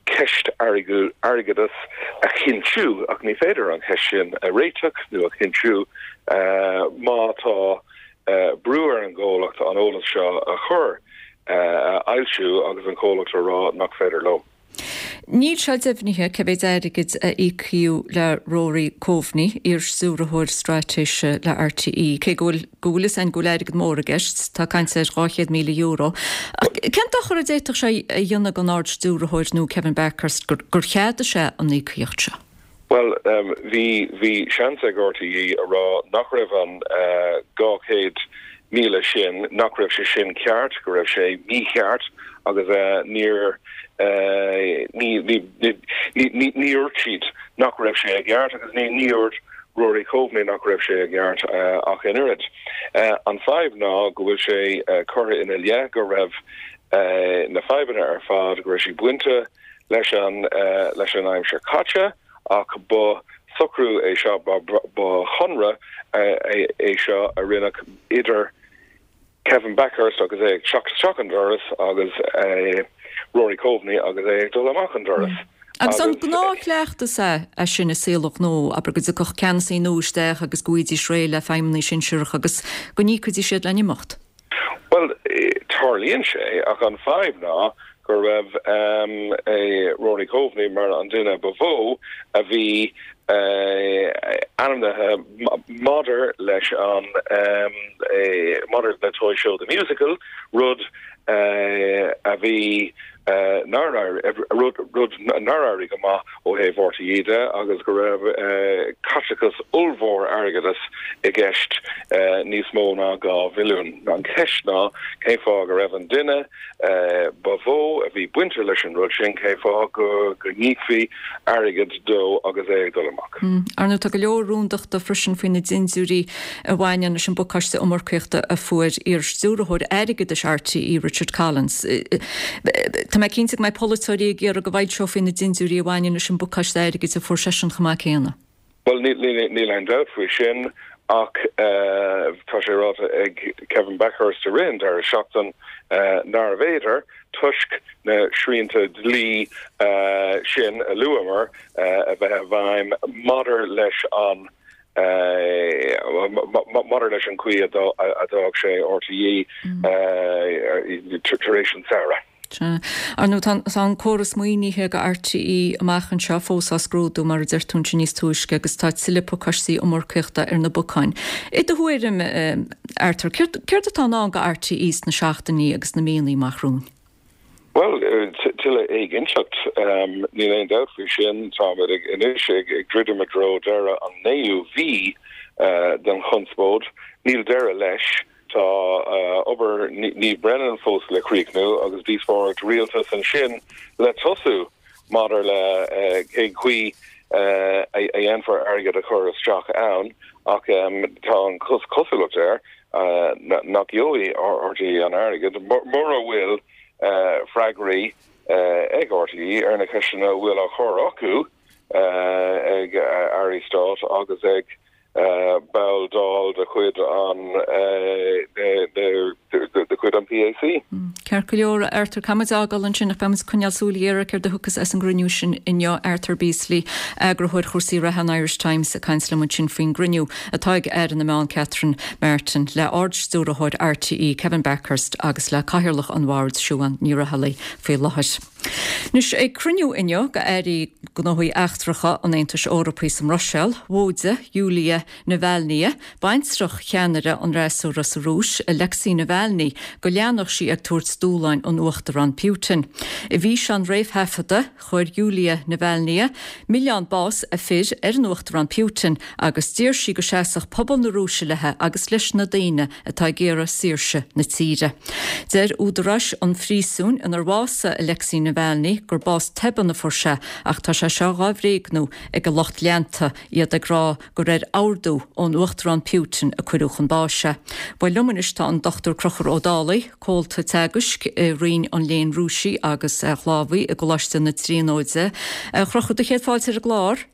ceist airgeadais a chinntiú, ach ní féidir an cheist sin a réiteach nó a chinntiú má tá brú ar an gcomhlacht an eolas seo a chur, a fhoilsiú agus an comhlacht a rá nach féidir leo. Níl sé deimhnithe cé mhéid airgid a íocadh le Rory Coveney, iar-stiúrthóir straitéise le RTÉ, cé go bhfuil go bhfuil fhios againn go bhfuil airgead mór i gceist, tá caint ar €200,000. Ach cén dochar a d'fhéadfadh sé a dhéanamh don Ard-Stiúrthóir nua Kevin Bakhurst gur cheadaigh sé an íocaíocht seo? Bhuel, bhí, bhí seans ag RTÉ a rá nach raibh an 200,000 sin, nach raibh sé sin ceart, go raibh sé mícheart agus níor, ní, ní, ní, ní dúirt siad nach raibh sé i gceart agus ní, ní dúirt Rory Coveney nach raibh sé i gceart ach an oiread. An fadhb ná go bhfuil sé curtha ina leith go raibh na fadhbanna ar fad, go raibh siad bainte leis an leis an aimsir caite ach ba socrú é seo, ba chonradh é seo a rinneadh idir Kevin Bakhurst agus é ag teacht isteach an doras agus Rory Coveney agus é ag dul amach an doras. Agus an gnáthchleachtas é é sin i saol an ghnó, abair go dtiocfadh ceannasaí nua isteach agus go bhfaighidís réidh le feidhmeannaigh sinsearacha agus go n-íocfaidís iad lena n-imeacht? Bhuel, tarlaíonn sé, ach an fadhb ná go raibh Rory Coveney mar an duine ba mhó a bhí ainmnithe maidir leis an maidir le Toy Show The Musical, rud a bhí nár rud rud nár éirigh go maith ó thaobh RTÉ de agus go raibh caiteachas ollmhór airgeadais i gceist, níos mó ná 2 mhilliún. An cheist ná cén fáth go raibh an duine ba mhó a bhí bainte leis an rud sin, cén fáth go n-íocfaí airgead dó agus é ag dul amach. Ar ndóigh, tá go leor rúndachta freisin faoi na dindiúirí a bhaineann leis an bpacáiste iomarcaíochta a fuair iar-stiúrthóir airgeadais RTÉ, Richard Collins. Tá mé cinnte go mbeidh polaiteoirí ag iarraidh go bhfoilseofaí na dindiúirí a bhaineann leis an bpacáiste airgid a fuair seisean chomh maith céanna. Bhuel, níl aon dabht faoi sin ach tá sé ráite ag Kevin Bakhurst i rith an deireadh seachtain nárbh fhéidir, toisc na srianta dlí sin a luamar a bheith i bhfeidhm maidir leis an maidir leis an chaoi a d'fhág sé RTÉ tar éis an tsamhraidh. Sea. Ar ndóigh, tá an córas maoinithe do RTÉ amach anseo fós á scrúdú, mar a deir tú ansin níos túisce, agus tá tuilleadh pacáistí iomarcaíochta ar na bacáin. I do thuairim, Arthur, céard atá i ndán do RTÉ sna seachtainí agus na míonna amach romhainn? Bhuel, tuilleadh éiginnteacht, níl aon dabht faoi sin. Táimid anois ag druidim i dtreo deireadh an naoú mhí den chonspóid. Níl deireadh leis. Tá obair Niamh Brennan fós le críochnú agus díospóireacht rialtais ansin le tosú maidir le cén chaoi a dhéanfar airgead a chur isteach ann ach tá an chosúlacht air nach gheobhaidh RTÉ an airgead mura bhfuil freagraí ag RTÉ ar na ceisteanna a bhfuil á chur acu ag airí stáit agus ag. Ball Dáil de chuid an de chuid an PAC. Ceart go leor, a Arthur, caithfidh muid é a fhágáil ansin ach beidh muid ag coinneáil súil ghéar ar céard a thiocfas as an gcruinniú sin inniu. Arthur Beesley, Eagarthóir Chúrsaí Reatha an Irish Times ag caint liom ansin faoin gcruinniú atá ag Aire na Meán Catherine Martin le Ard-Stiúrthóir RTÉ Kevin Bakhurst agus le Cathaoirleach an Bhoird Siobhán Ní Raghallaigh faoi láthair. Anois, ag cruinniú inniu d'Airí Gnóthaí Eachtracha an Aontais Eorpaigh sa mBruiséil, mhóidigh Yulia Navalnaya, baintreach cheannaire an fhreasúra sa Rúis, Alexei Navalny, go leanfadh sí ag tabhairt dúshláin an Uachtaráin Putin. I bhfíseán réamhthaifeadta, chuir Yulia Navalnaya milleán bás a fir ar an Uachtarán Putin agus d'iarr sí go seasfadh pobal na Rúise léi agus leis na daoine atá ag iarraidh saoirse na tíre. Deir údaráis an phríosúin inar bhásaigh Alexei Navalny gur bás tobann a fuair sé ach tá sé seo dhá bhréagnú ag a lucht leanta, iad ag rá gur ar ordú ón Uachtarán Putin a cuireadh chun báis é. Bhuel liom anois tá an Dr Conchúr Ó Dálaigh, Comhalta Teagaisc i Roinn an Léinn Rúisigh agus Shlávaigh i gColáiste na Tríonóide. A Chonchúir, do chéad fáilte ar an gclár.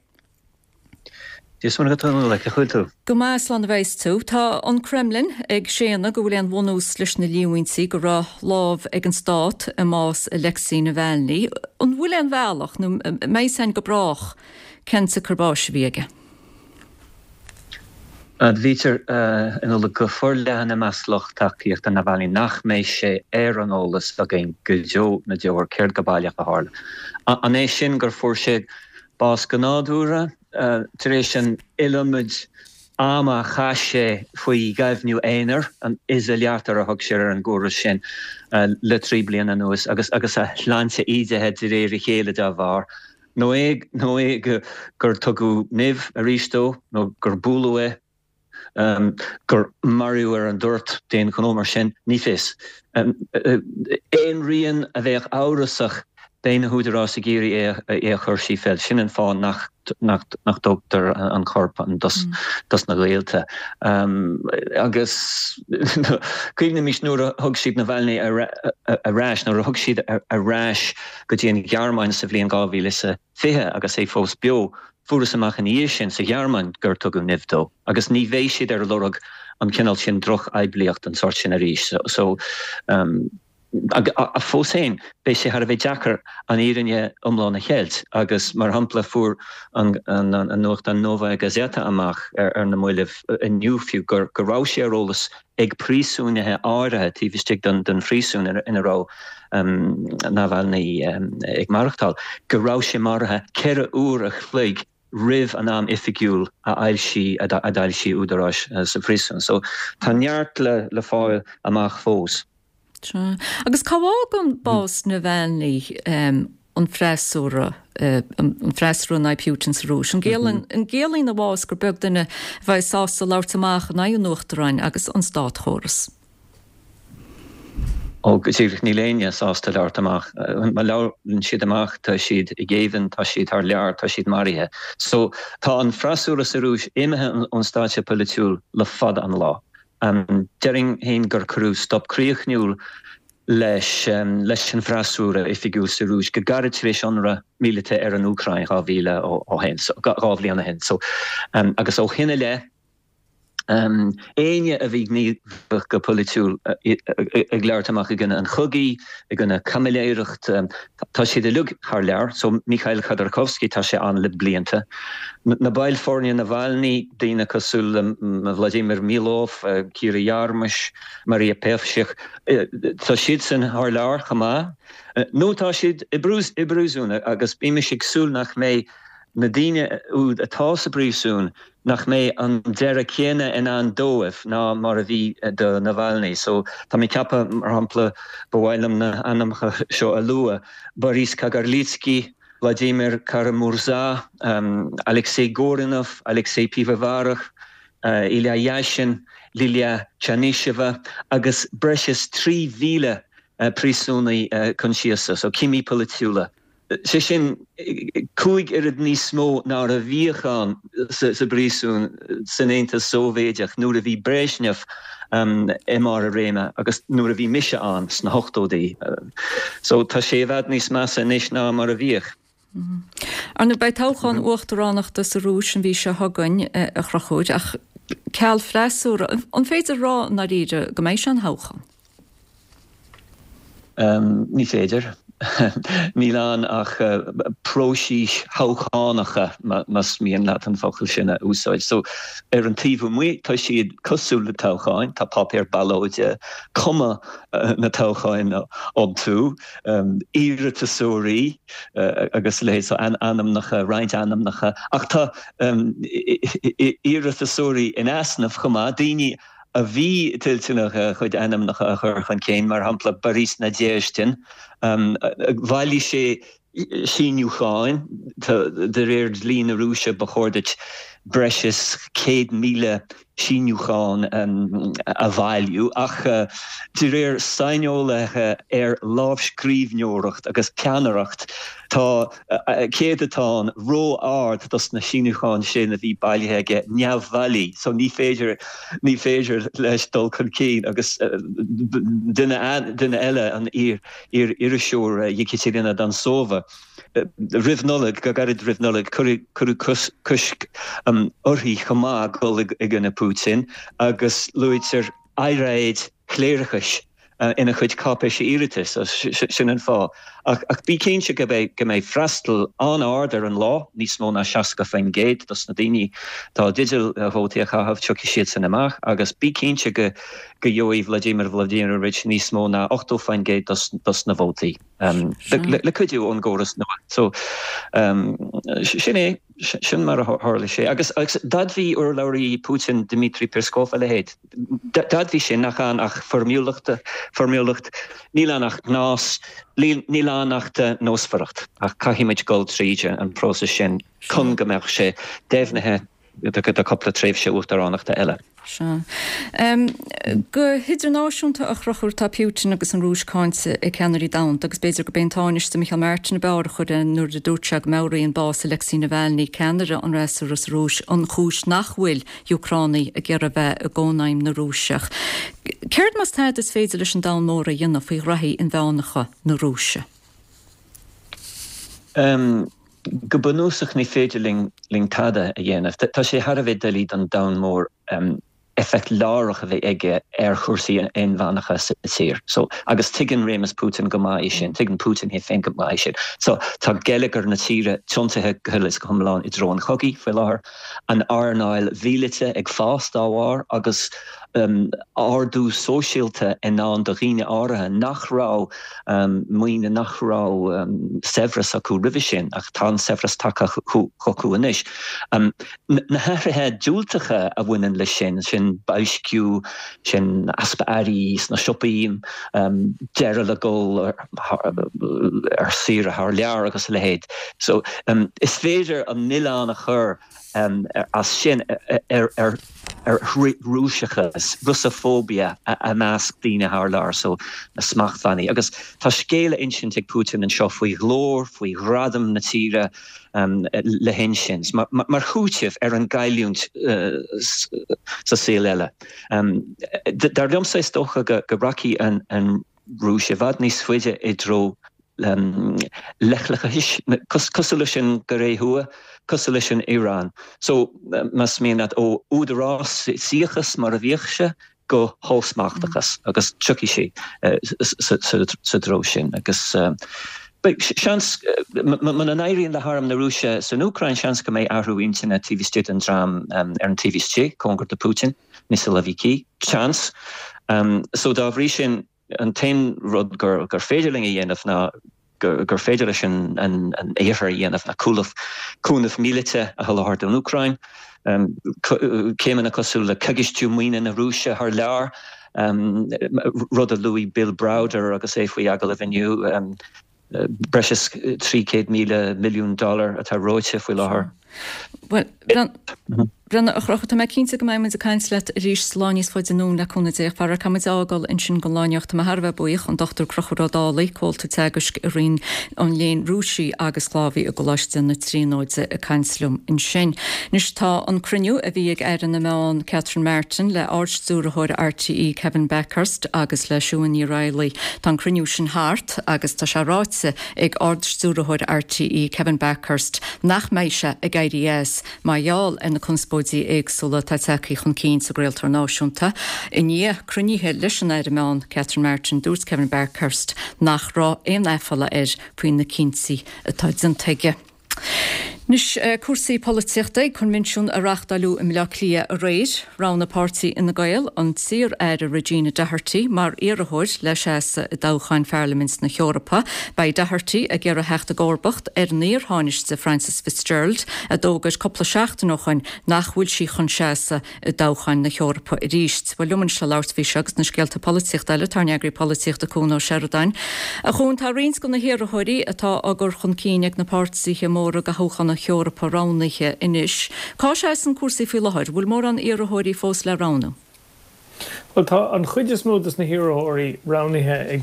Dia is Muire dhuit a Nollaig, cén chaoi a bhfuil tú? Go maith, slán a bheas tú. Tá an Kremlin ag séanadh go bhfuil aon bhunús leis na líomhaintí go raibh lámh ag an stát i mbás Alexei Navalny. An bhfuil aon bhealach, nó an mbeidh a fhios againn go brách, cén tsiocair báis a bhí aige? Admhaítear a Nollaig go forleathan i measc lucht tacaíochta Navalny nach mbeidh sé ar an eolas againn go deo na ndeor céard go baileach a tharla. An é sin gur fuair sé bás go nádúrtha tar éis an iliomad ama a chaith sé faoi ghaibhniú aonair, an izolyatор a thug siad ar an gcóras sin, le 3 bliana anuas agus agus a shláinte ídithe de réir a chéile dá bharr? Nó é nó é gur tugadh nimh arís dó nó gur bualadh é? gur maraíodh ar an dtoirt d'aon ghnó mar sin, ní fios. Aon rian a bheadh amhrasach, beidh na húdaráis ag iarraidh é a chur trí chéile. Sin an fáth nach dtógtar an corp dos na gaolta. Agus cuimhnímis nuair a thug siad Navalny ar ais, nuair a thug siad ar ais go dtí an Ghearmáin sa bhliain 2020 agus é fós beo, Fuarthas amach ina dhiaidh sin sa Ghearmáin gur tugadh nimh dó agus ní bheidh siad ar lorg an cineál sin drochphoiblíocht den sórt sin arís. So, ach fós féin, beidh sé thar a bheith deacair an fhírinne iomlán a cheilt agus, mar shampla, fuair an nuachtán Novaya Gazeta amach ar na mallaibh inniu fiú go raibh sé ar eolas ag príosúnaithe áirithe taobh istigh den phríosún ina raibh Navalny ag maireachtáil, go raibh sé maraithe 4 uair a chloig roimh an am oifigiúil a fhoilsigh a d'fhoilsigh údaráis sa phríosún. So tá neart le fáil amach fós. Sea. Agus cá bhfágann bás Navalny an freasúra, an freasúra in aghaidh Putin sa Rúis? An gciallaíonn a bhás gur beag duine a bheidh sásta labhairt amach in aghaidh an Uachtaráin agus an státchóras? Ó, go díreach, níl éinne sásta labhairt amach. Má labhrann siad amach, tá siad i ngéibheann, tá siad thar lear, tá siad maraithe. So, tá an freasúra sa Rúis imithe ón stáitse polaitiúil le fada an lá. Déarfainn féin gur cuireadh stop críochnúil leis leis an bhfreasúra oifigiúil sa Rúis go gairid tar éis ionradh míleata ar an Úcráin 2000 ó shin, 2 bhliain ó shin. So, agus ó shin i leith, éinne a bhí gníomhach go polaitiúil ag labhairt amach i gcoinne an chogaidh, i gcoinne caimiléireacht, tá siad uilig thar lear. So, Mikhail Khodorkovsky, tá sé ann le blianta. Na baill foirne Navalny, daoine cosúil le Vladimir Milov, Kira Yarmysh, Maria Pevchikh, tá siadsan thar lear chomh maith. Nó tá siad i bpríosún agus bímis ag súil nach mbeidh na daoine úd atá sa bpríosún, nach mbeidh an deireadh céanna i ndán dóibh ná mar a bhí do Navalny. So, tá mé ag ceapadh, mar shampla, ba mhaith liom na hainmneacha seo a lua, Boris Kagarlitsky, Vladimir Kara-Murza, Alexei Gorinov, Alexei Pivovarov, Ilya Yashin, Lilia Chanysheva agus breis is 3,000 príosúnaí coinsiasa, so cimí polaitiúla. Sé sin, 5 oiread níos mó ná a bhíodh ann sa bpríosún san Aontas Sóivéideach nuair a bhí Brezhnev i mbarr a réime agus nuair a bhí mise ann sna hochtóidí. So tá sé i bhfad níos measa anois ná mar a bhíodh. Ar ndóigh, beidh toghchán uachtaránachta sa Rúis an mhí seo chugainn, a Chonchúir, ach ceal freasúra, an féidir a rá i ndáiríre go mbeidh sé ina thoghchán? Ní féidir. Níl ann ach próisis thoghchánacha, más mian leat an focal sin a úsáid. So, ar an taobh amuigh, tá siad cosúil le toghcháin, tá páipéar ballóide, cuma na toghcháin iontu, iarratasóirí agus a leithéid, so ainmneacha, roinnt ainmneacha, ach tá iarratasóirí in easnamh chomh maith, daoine a bhí toilteanach a chuid ainmneacha a chur chun cinn, mar shampla Boris Nadezhdin, bhailigh sé síniúcháin, de réir dlí na Rúise ba chóir duit breis is 100,000 síniúchán a bhailiú, ach de réir saineolaithe ar lámhscríbhneoireacht agus peannaireacht, tá céadatán ró-ard dos na síniúcháin sin a bhí bailithe aige neamhbhailí, so ní féidir, ní féidir leis dul chun cinn agus duine, duine eile, an iar-iriseoir Yekaterina Dontsova, Roimh Nollaig, go gairid roimh Nollaig, cuireadh cosc uirthi chomh maith dul i gcoinne Putin agus luaitear earráid chléireachais ina chuid cáipéisí iarratais, sin an fáth. Ach bí cinnte go mbeidh freastal an-ard ar an lá, níos mó ná 60% dos na daoine atá i dteideal vótaí a chaitheamh, tiocfaidh siadsan amach agus bí cinnte go gheobhaidh Vladimir Vladimirovich níos mó ná 80% dos na vótaí. Le cuidiú ón gcóras nua. So, sin é, sin mar a tharla sé. Agus d'admhaigh urlabhraí Putin, Dmitry Peskov, a leithéid. D'admhaigh sé nach ann ach foirmiúlacht, foirmiúlacht, níl ann ach gnás, níl ann ach nósmhaireacht. Ach caithfidh muid dul tríd an próiseas sin chun go mbeadh sé deimhnithe do cúpla tréimhse uachtaránachta eile. Sea. Go hidirnáisiúnta, a Chonchúir, tá Putin agus an Rúis cáinte ag ceannairí domhanda agus b'fhéidir gurb é an Tánaiste Micheál Martin ab fhearr a chuir é nuair a dúirt sé go meabhraíonn bás Alexei Navalny, ceannaire an fhreasúra sa Rúis, an chúis nach bhfuil Úcránaigh ag iarraidh bheith i gCónaidhm na Rúiseach. Céard más tada is féidir leis an domhan mór a dhéanamh faoi ghraithí inmheánacha na Rúise? Go bunúsach ní féidir linn tada a dhéanamh. Tá sé thar a bheith doiligh don domhan mór éifeacht láithreach a bheith aige ar chúrsaí inmheánacha sa tír. So, agus tuigeann réimeas Putin go maith é sin, tuigeann Putin é féin go maith é sin. So, tá geilleagar na tíre tiontaithe go huile is go hiomlán i dtreo an chogaidh faoi láthair, an earnáil mhíleata ag fás dá bharr agus ardú sóisialta i ndán do dhaoine áirithe nach raibh maoine, nach raibh saibhreas acu roimhe sin, ach tá an saibhreas tagtha chucu anois. Na hathruithe diúltacha a bhaineann leis sin, sin boilsciú, sin easpa earraí sna siopaí, deireadh le dul ar saoire thar lear agus a leithéid. So, is féidir an milleán a chur as sin ar Rúiseachas, Russophobia, i measc daoine thar lear, so na smachtbhannaí. Agus tá scéal a insint ag Putin anseo faoi ghlóir, faoi ghradam na tíre le hinsint, mar chúiteamh ar an gcailliúint sa saol eile. Dar liomsa, is dócha go rachaidh an Rúis i bhfad níos faide i dtreo leithleachais, cosúil leis an gCóiré Thuaidh, cosúil leis an Iaráin. So, más mian leat, ó údarásaíochas mar a bhíodh sé go hollsmachtachas agus tiocfaidh sé sa treo sin. Agus beidh seans, muna n-éiríonn le harm na Rúise san Úcráin, seans go mbeidh athrú intinne taobh istigh den dream ar an taobh istigh, cóngar do Putin, na siloviki. Seans. So, dá bhrí sin, An t-aon rud gur féidir linn a dhéanamh ná gur féidir leis an Iarthar a dhéanamh ná cúnamh míleata a sholáthar don Úcráin, céimeanna cosúil le coigistiú maoine na Rúise thar lear, rud a luaigh Bill Browder agus é faoi agallamh inniu. Breis is 300,000 milliún dollar atá reoite faoi láthair. Bhuel, Bhreandáin, a Chonchúir, tá mé cinnte go mbeidh muid ag caint leat arís sa lá níos faide anonn le cúnamh Dé. Ach faraor caithfidh muid a fhágáil ansin don lá inniu. Tá mé thar a bheith buíoch, an Dr Conchúr Ó Dálaigh, Comhalta Teagaisc i Roinn an Léinn Rúisigh agus Shlávaigh i gColáiste na Tríonóide ag caint liom ansin. Anois tá an cruinniú a bhí ag Aire na Meán Catherine Martin le Ard-Stiúrthóir RTÉ Kevin Bakhurst agus le Siún Ní Raghallaigh, tá an cruinniú sin thart agus tá sé ráite ag Ard-Stiúrthóir RTÉ Kevin Bakhurst nach mbeidh sé ag éirí as mar gheall ar na conspóidí éagsúla atá tagtha chun cinn sa gcraoltóir náisiúnta. I ndiaidh cruinnithe leis an Aire Meán Catherine Martin, dúirt Kevin Bakhurst nach raibh aon aiféala air faoi na cinntí atá déanta aige. Anois, cúrsaí polaitíochta. Ag coinbhinsiún a reáchtáileadh i mBleá Cliath aréir, roghnaigh páirtí Fhine Gael an t-iar-aire Regina Doherty mar iarrthóir le seasamh i dtoghchán Pharlaimint na hEorpa. Beidh Doherty ag iarraidh theacht i gcomharbacht ar an iar-Thánaiste Frances Fitzgerald, a d'fhógair cúpla seachtain ó shoin nach bhfuil sí chun seasamh i dtoghchán na hEorpa arís. Bhuel, liom anois le labhairt faoi seo agus na scéalta polaitíochta eile, tá ár n-eagraí polaitíochta Cuan Ó Seireadáin. A Chuain, tá roinnt de na hiarrthóirí atá á gcur chun cinn ag na páirtithe móra do thoghchán na hEorpa roghnaithe anois. Cá seasann cúrsaí faoi láthair? Bhfuil mórán iarrthóirí fós le roghnú? Bhuel, tá an chuid is mó de na hiarrthóirí roghnaithe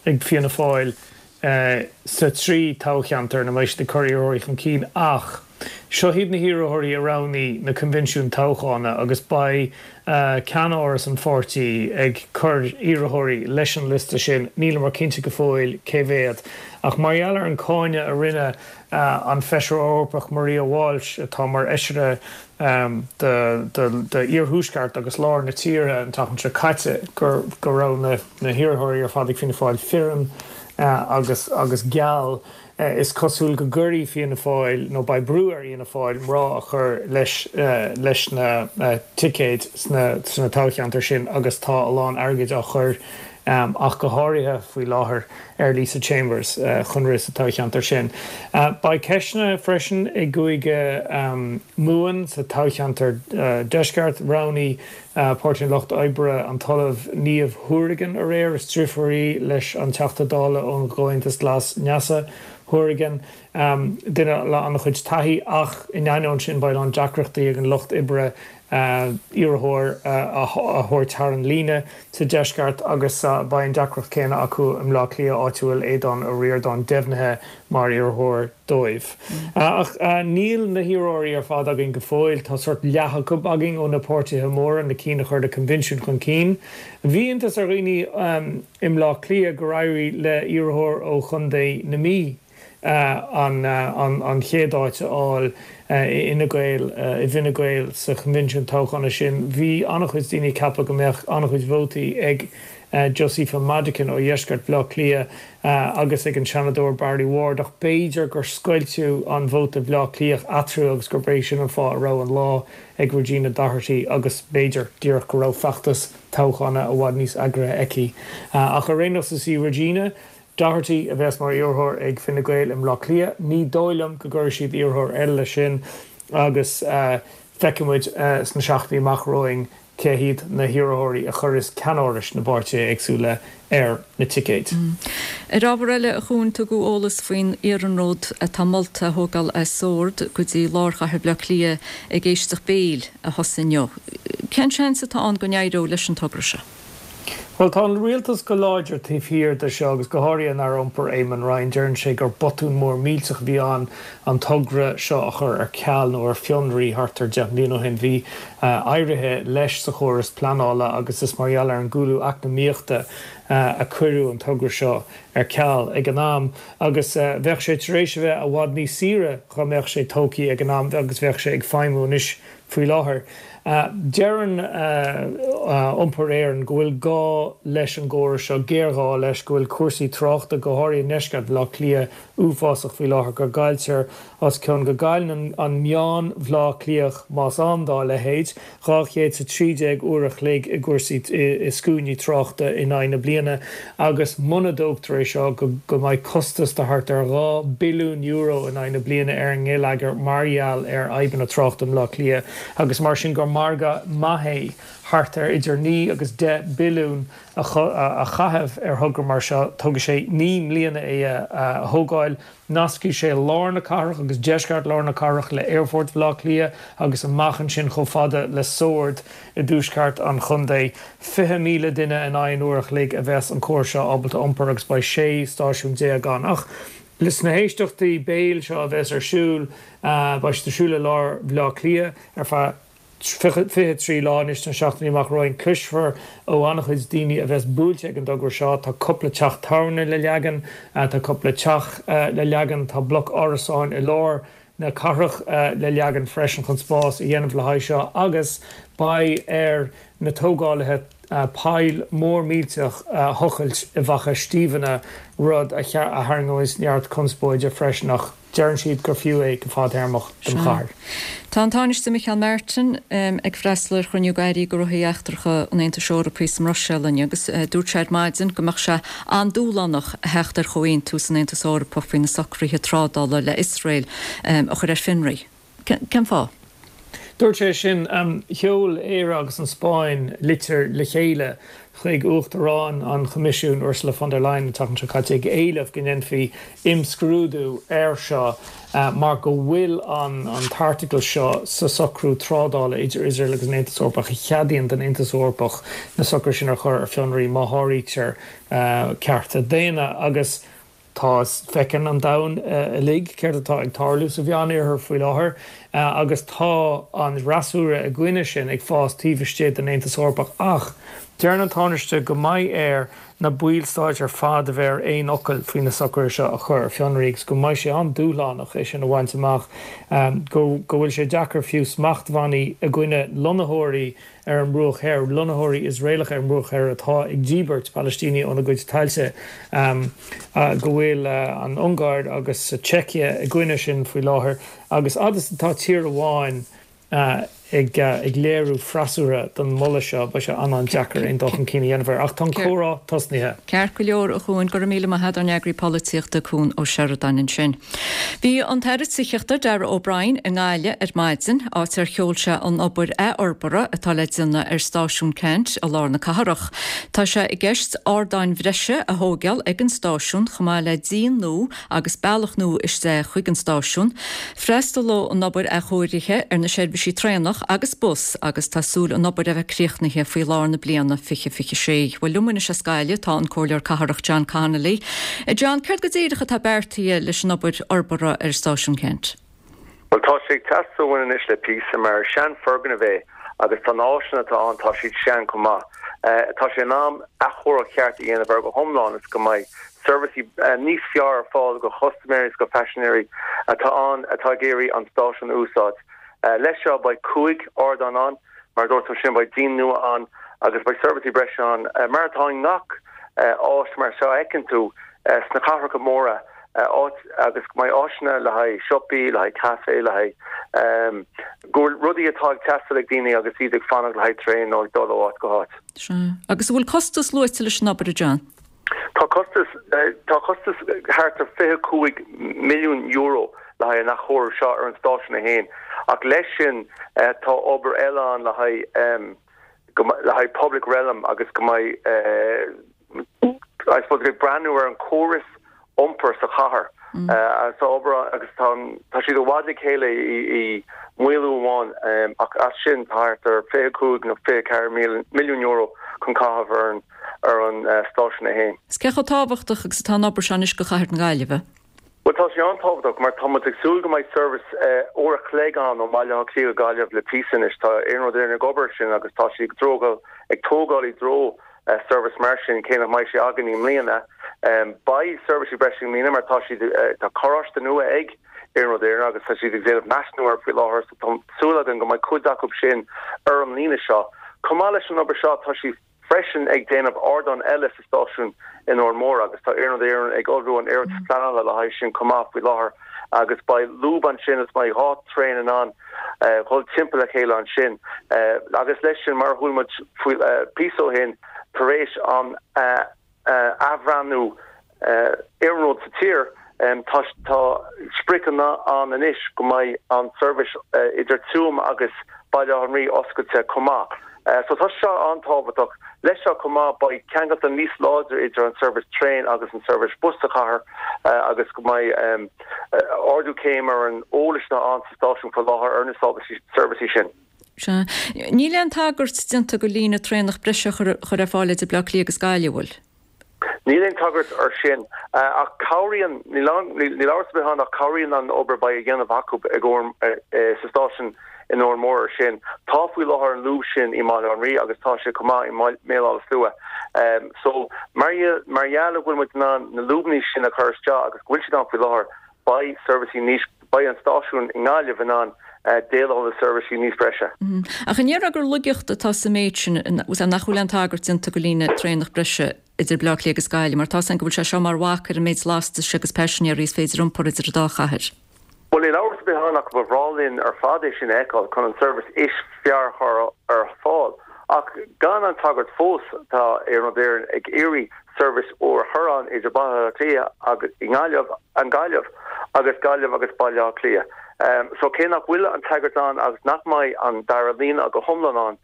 ag Fianna Fáil sa trí toghcheantar ina mbeidh siad ag cur iarrthóirí chun cinn ach seo hiad na hiarrthóirí a roghnaigh na coinbhinsiúin toghchána agus beidh ceannáras an pháirtí ag cur iarrthóirí leis an liosta sin, níleamar cinnte go fóill cé mhéad. Ach mar gheall ar an cáineadh a rinne an Feisire Eorpach Maria Walsh, atá mar fheisire d'iarthuaisceart agus lár na tíre an tseachtain seo caite, go raibh na hiarrthóirí ar fad ag Fianna Fáil fireann agus agus geal, is cosúil go gcuirfidh Fianna Fáil, nó beidh brú ar Fhianna Fáil, mná a chur leis leis na ticéid sna toghcheantair sin agus tá a lán airgid á chur ach go háirithe faoi láthair ar Lisa Chambers chun rith sa toghcheantar sin. Beidh ceisteanna freisin i gCúige Mumhan sa toghcheantar Deisceart. Roghnaigh Páirtí an Lucht Oibre an tOllamh Niamh Hourigan aréir. Is driofúr í leis an Teachta Dála ón gComhaontas Glas Neasa Hourigan, duine le an-chuid taithí ach in ainneoin sin beidh a lán deacrachtaí ag an Lucht Oibre iarrthóir a thabhairt thar an líne sa deisceart agus beidh an deacracht céanna acu i mBleá Cliath áit a bhfuil Aodhán Ó Ríordáin deimhnithe mar iarrthóir dóibh. Ach níl na hiarrthóirí ar fad againn go fóill. Tá sórt leath acu againn ó na páirtithe móra, na cinn a chuir na coinbhinsiúin chun cinn. Bhí iontas ar dhaoine i mBleá Cliath gur éirigh le iarrthóir ó Chontae na Mí an chéad áit a fháil i Fhine Gael, i bhFine Gael sa choinbhinsiún toghchána sin. Bhí an-chuid daoine ag ceapadh go mbeadh an-chuid vótaí ag Josepha Madigan ó dheisceart Bhaile Átha Cliath agus ag an Seanadóir Barry Ward ach b'fhéidir gur scoilteadh an vóta Bhaile Átha Cliath eatarthu agus gurb é sin an fáth a raibh an lá ag Regina Doherty agus b'fhéidir díreach go raibh feachtas toghchána i bhfad níos eagraithe aici. Ach ar aon nós is í Regina Doherty a bheas mar iarrthóir ag Fine Gael i mBleá Cliath. Ní dóigh liom go gcuirfidh siad iarrthóir eile leis sin agus feicfidh muid sna seachtainí amach romhainn cé hiad na hiarrthóirí a chuirfeas ceannárais na bpáirtithe éagsúla ar na ticéid. Ar ábhar eile, a Chuain, tugadh eolas faoin iarnród atá molta a thógáil as Sord go dtí lár chathair Bhaile Átha Cliath ag éisteacht béil a thosaigh inniu. Cén seans atá ann go n-éireoidh leis an togra seo? Bhuel, tá an rialtas go láidir taobh thiar de seo agus go háirithe an Aire Iompair Eamon Ryan. Deireann sé gur botún mór millteach a bhí ann an togra seo a chur ar ceal nó ar fionraí thart ar 10 mbliana ó shin. Bhí éirithe leis sa chóras pleanála agus is mar gheall ar an gcúlú eacnamaíochta a cuireadh an togra seo ar ceal ag an am agus bheadh sé tar éis a bheith i bhfad níos saoire dhá mbeadh sé tógtha ag an am agus bheadh sé ag feidhmiú anois Faoi láthair, deireann Iompar Éireann go bhfuil gá leis an gcóras seo, géarghá leis, go bhfuil cúrsaí tráchta, go háirithe i ndeisceart Bhaile Átha Cliath, uafásach faoi láthair, go gcailltear os cionn, go gcailleann an meán Bhaile Átha Cliathach, más ann dá leithéid, 213 uair a chloig i gcúrsaí, i scuainí tráchta in aghaidh na bliana agus muna dtógtar é seo, go mbeidh costas de thart ar €2 billiún in aghaidh na bliana ar an ngeilleagar mar gheall ar fhadhbanna tráchta i mBleá Cliath. agus mar sin gur margadh maith é thart ar idir 9 agus 10 billiún a chaitheamh ar thogra mar seo. Tógfaidh sé 9 mbliana é a thógáil. Nascfaidh sé lár na cathrach agus deisceart lár na cathrach le Aerfort Bhaile Átha Cliath agus amach ansin chomh fada le Sord i dtuaisceart an chontae. 20,000 duine in aghaidh an uair a chloig a bheas an córas seo ábalta iompar agus beidh 16 stáisiún ann. Ach sna héisteachtaí béil seo a bheas ar siúl, beidh siad ar siúl i lár Bhaile Átha Cliath ar feadh 23 lá anois sna seachtainí amach romhainn. Cloisfear ó an-chuid daoine a bheas buailte ag an dtogra seo. Tá cúpla teach tábhairne le leagan, tá cúpla teach le leagan, tá bloc árasáin i lár na cathrach le leagan freisin chun spás a dhéanamh le haghaidh seo agus beidh ar na tógálaithe poll mór millteach a thochailt i bhFaiche Stiabhna, rud a tharraingeoidh neart conspóide freisin ach. Deireann siad gur fiú é go fadtéarmach don chathair. Tá an Tánaiste Micheál Martin ag freastal ar chruinniú d'Airí Gnóthaí Eachtracha an Aontais Eorpaigh sa mBruiséil inniu agus dúirt sé ar maidin go mbeadh sé an-dúshlánach a theacht ar chomhaontú san Aontas Eorpach faoi na socruithe trádála le Iosrael a chur ar fionraí. Cén fáth? Dúirt sé sin. Sheol Éire agus an Spáinn litir le chéile chuig Uachtarán an Choimisiúin, Ursula von der Leyen, an tseachtain seo caite ag éileamh go ndéanfaí imscrúdú air seo mar go bhfuil an t-airteagal seo sa socrú trádála idir Iosrael agus an Aontas Eorpach a cheadaíonn don Aontas Eorpach na socruithe sin a chur ar fionraí má sháraítear cearta daonna agus Tá, feiceann an domhan uilig céard atá ag tarlú sa Mheánoirthear faoi láthair agus tá an fhreasúra i gcoinne sin ag fás taobh istigh den Aontas Eorpach. Ach deireann an Tánaiste go mbeidh air na ballstáit ar fad a bheith ar aon fhocal faoi na socruithe seo a chur ar fionraí agus go mbeidh sé an-dúshlánach é sin a bhaint amach, go bhfuil sé deacair fiú smachtbhannaí i gcoinne lonnaitheoirí ar an mBruach Thoir, lonnaitheoirí Iosraelacha ar an mBruach Thoir atá ag díbirt Palaistínigh óna gcuid tailte, go bhfuil an Ungáir agus Seicia i gcoinne sin faoi láthair, agus fhad is atá tír amháin ag léiriú freasúra don mholadh seo, beidh sé an-an-deacair aon dul chun cinn a dhéanamh air. Ach tá an comhrá tosnaithe. Ceart go leor, a Chuain, go raibh míle maith agat, ár n-eagraí polaitíochta, Cuan Ó Seireadáin ansin. Bhí an tAire Tithíochta, Darragh O'Brien, i nGaillimh ar maidin, áit ar sheol sé an obair athfhorbartha atá le déanamh ar Stáisiún Ceannt i lár na cathrach. Tá sé i gceist ardáin bhreise a thóigeáil ag an stáisiún chomh maith le díon nua agus bealach nua isteach chuig an stáisiún. Freastalóidh an obair athchóirithe ar na seirbhísí traenach agus bus agus tá súil an obair a bheith críochnaithe faoi lár na bliana 2026. Bhuel liom anois as Gaillimh tá an Comhairleoir Cathrach John Connolly. A John, céard go díreach atá beartaithe leis an obair fhorbartha ar Stáisiún Ceannt? Bhuel, tá sé ag teastáil uainn anois le píosa, mar is sean-fhoirgneamh é agus tá na áiseanna atá ann, tá siad sean chomh maith. Tá sé in am athchóiriú ceart a dhéanamh air go hiomlán is go mbeidh seirbhísí níos fearr ar fáil go chustaiméirí is go paisinéirí atá ann atá ag iarraidh an stáisiún a úsáid. Leis seo beidh 5 ardán ann, mar a dúirt tú ansin, beidh díon nua ann agus beidh seirbhísí breise ann mar atá i ngach áis mar seo a fheiceann tú sna cathracha móra, áit agus go mbeidh áiseanna le haghaidh siopaí, le haghaidh caife, le haghaidh go bhfuil rudaí atá ag teastáil ag daoine agus iad ag fanacht le haghaidh traein nó ag dul ó áit go háit. Sea. Agus an bhfuil costas luaite leis an obair, a John? Tá costas, tá costas thart ar €25 milliún le haghaidh an athchóiriú seo ar an stáisiún é féin ach leis sin tá obair eile ann le haghaidh le haghaidh public realm agus go mbeidh I suppose ag breathnú ar an córas iompair sa chathair. Tá obair agus tá tá siad i bhfad le chéile i maolú amháin ach as sin tá thart ar 25 nó 24 milliún euro chun caitheamh ar an ar an stáisiún é féin. Is cé chomh tábhachtach agus atá an obair seo anois do chathair na Gaillimhe? Bhuel tá sé an-tábhachtach mar tá muid ag súil go mbeidh seirbhís uair a chloig ann ó Bhaile Átha Cliath go Gaillimh le píosa anois. Tá Iarnród Éireann ag obair sin agus tá siad ag ag tógáil i dtreo seirbhís mar sin cé nach mbeidh sé againn i mbliana. Beidh seirbhísí breise i mbliana mar tá siad tá carráiste nua ag Iarnród Éireann agus tá siad ag déanamh measúnú air faoi láthair so tá súil againn go mbeidh cuid acu sin ar an líne seo. Chomh maith leis an obair seo tá siad freisin ag déanamh ardán eile sa stáisiún in Órán Mór agus tá Iarnród Éireann ag ullmhú an iarratas pleanála le haghaidh sin chomh maith faoi láthair agus beidh lúb ansin is beidh 2 traein in ann dhul timpeall a chéile ansin agus leis sin mar a chuala muid faoi píosa ó shin tar éis an athbhreathnú iarnróid sa tír. Tá tá spriocanna ann anois go mbeidh an seirbhís idir Tuaim agus Baile Átha an Rí oscailte chomh maith. So tá seo an-tábhachtach. Leis seo chomh maith beidh ceangailte níos láidre idir an seirbhís traein agus an seirbhís bus sa chathair agus go mbeidh ardú céim ar an eolas atá ann sa stáisiún faoi láthair ar na seirbhísí sin. Sea. Níl aon tagairt déanta go líne traenach breise a chur ar fáil idir Bleá Cliath agus Gaillimh, an bhfuil? Níl aon tagairt ar sin, ach cabhraíonn, níl amhras ar bith ann ach cabhraíonn an obair a beidh á dhéanamh acu ag sa stáisiún in Órán Mór ar sin. Tá faoi láthair an lúb sin i mBaile Átha an Rí agus tá sé chomh maith i mBéal Átha Slua. So mar gheall go bhfuil muid in ann na lúbanna sin a chur isteach agus go bhfuil siad ann faoi láthair, beidh seirbhísí níos, beidh an stáisiún i nGaillimh in ann déileáil le seirbhísí níos breise. Ach an ndéarfá gur laigeacht atá sa méid sin, nach bhfuil aon tagairt déanta go líne traenach breise idir Bleá Cliath agus Gaillimh, mar tá 's againn go bhfuil sé seo mar bhac ar an méid lastais agus paisinéirí is féidir iompar idir an dá chathair? Bhuel, níl amhras ar bith ann ach ba bhreá linn ar fad é sin a fheiceáil chun an seirbhís is fearr a chur ar fáil. Ach gan an tagairt fós, tá Iarnród Éireann ag iarraidh seirbhís úr a chur ann idir Baile Átha Cliath agus i nGaillimh, an Ghaillimh agus Gaillimh agus Baile Átha Cliath. So cé nach bhfuil an tagairt ann agus nach mbeidh an dara líne go hiomlán ann,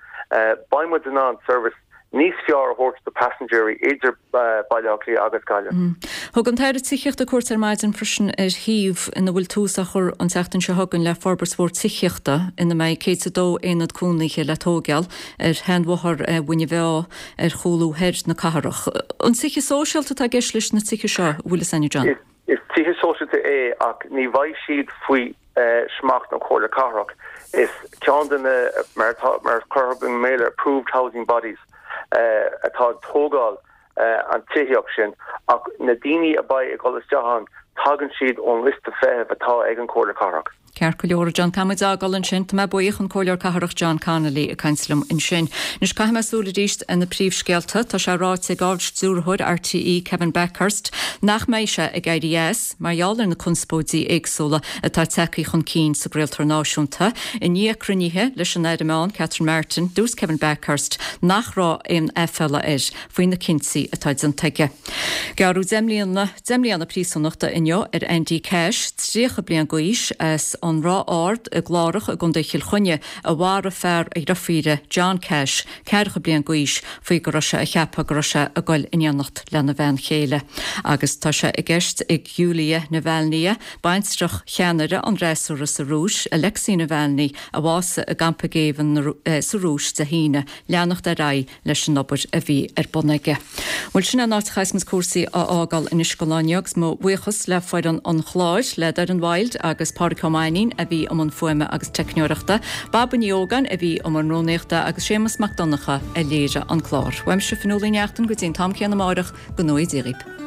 beidh muid in ann seirbhís níos fearr a thabhairt do paisinéirí idir Baile Átha Cliath agus Gaillimh. Thug an tAire Tithíochta cuairt ar maidin freisin ar shuíomh ina bhfuil tús á chur an tseachtain seo chugainn le forbairt mhór tithíochta ina mbeidh 102 aonad cónaithe le tóigeáil ar sheanbhóthar Mhuine Mheá ar chúlú thoir na cathrach. An tithe sóisialta atá i gceist leis na tithe seo, an bhfuil fhios againn, John? Is tithe sóisialta é ach ní bheidh siad faoi smacht na Comhairle Cathrach. Is ceann de na, mar atá, mar a cuireadh i mBéarla, approved housing bodies atá ag tógáil an tithíocht sin ach na daoine a beidh ag dul isteach ann, tagann siad ón liosta feithimh atá ag an Chomhairle Cathrach. Ceart go leor, a John. Caithfidh muid fhágáil ansin. Tá mé buíoch, an Comhairleoir Cathrach John Connolly ag caint liom ansin. Anois caithfidh mé súil arís ar na príomhscéalta. Tá sé ráite ag Ard-Stiúrthóir RTÉ Kevin Bakhurst nach mbeidh sé ag éirí as mar gheall ar na conspóidí éagsúla atá tagtha chun cinn sa gcraoltóir náisiúnta. I ndiaidh cruinnithe leis an Aire Meán Catherine Martin, dúirt Kevin Bakhurst nach raibh aon aiféala air faoi na cinntí atá déanta aige. Gearradh 10 mbliana 10 mbliana príosúnachta inniu ar Andy Cash, 30 bliain d'aois, as an Ráth Ard i gClárach i gContae Chill Chainnigh, a mharaigh fear a dhriofíre, John Cash, ceathracha bliain d'aois, faoi go raibh sé a cheapadh go raibh sé ag goil in éineacht lena bhean chéile. Agus tá sé i gceist ag Yulia Navalnaya, baintreach cheannaire an fhreasúra sa Rúis, Alexei Navalny, a bhásaigh i gcampa géibhinn sa Rúis Dé hAoine, leanacht ar aghaidh leis an obair a bhí ar bun aige. Bhuel, sin é an áit a chaithfeas muid cúrsaí a fhágáil anois don lá inniu agus mo bhuíochas le foireann an chláir, le Doireann Wild agus Pádraic Ó Mainnín a bhí i mbun fuaime agus teicneoireachta, Baba Ní Ógáin a bhí i mbun rúnaíochta agus Séamus Mac Donncha a léirigh an clár. Uaimse Fionnuala Ní Neachtain go dtí an t-am céanna amáireach, go ngnóthaí Dia dhaoibh.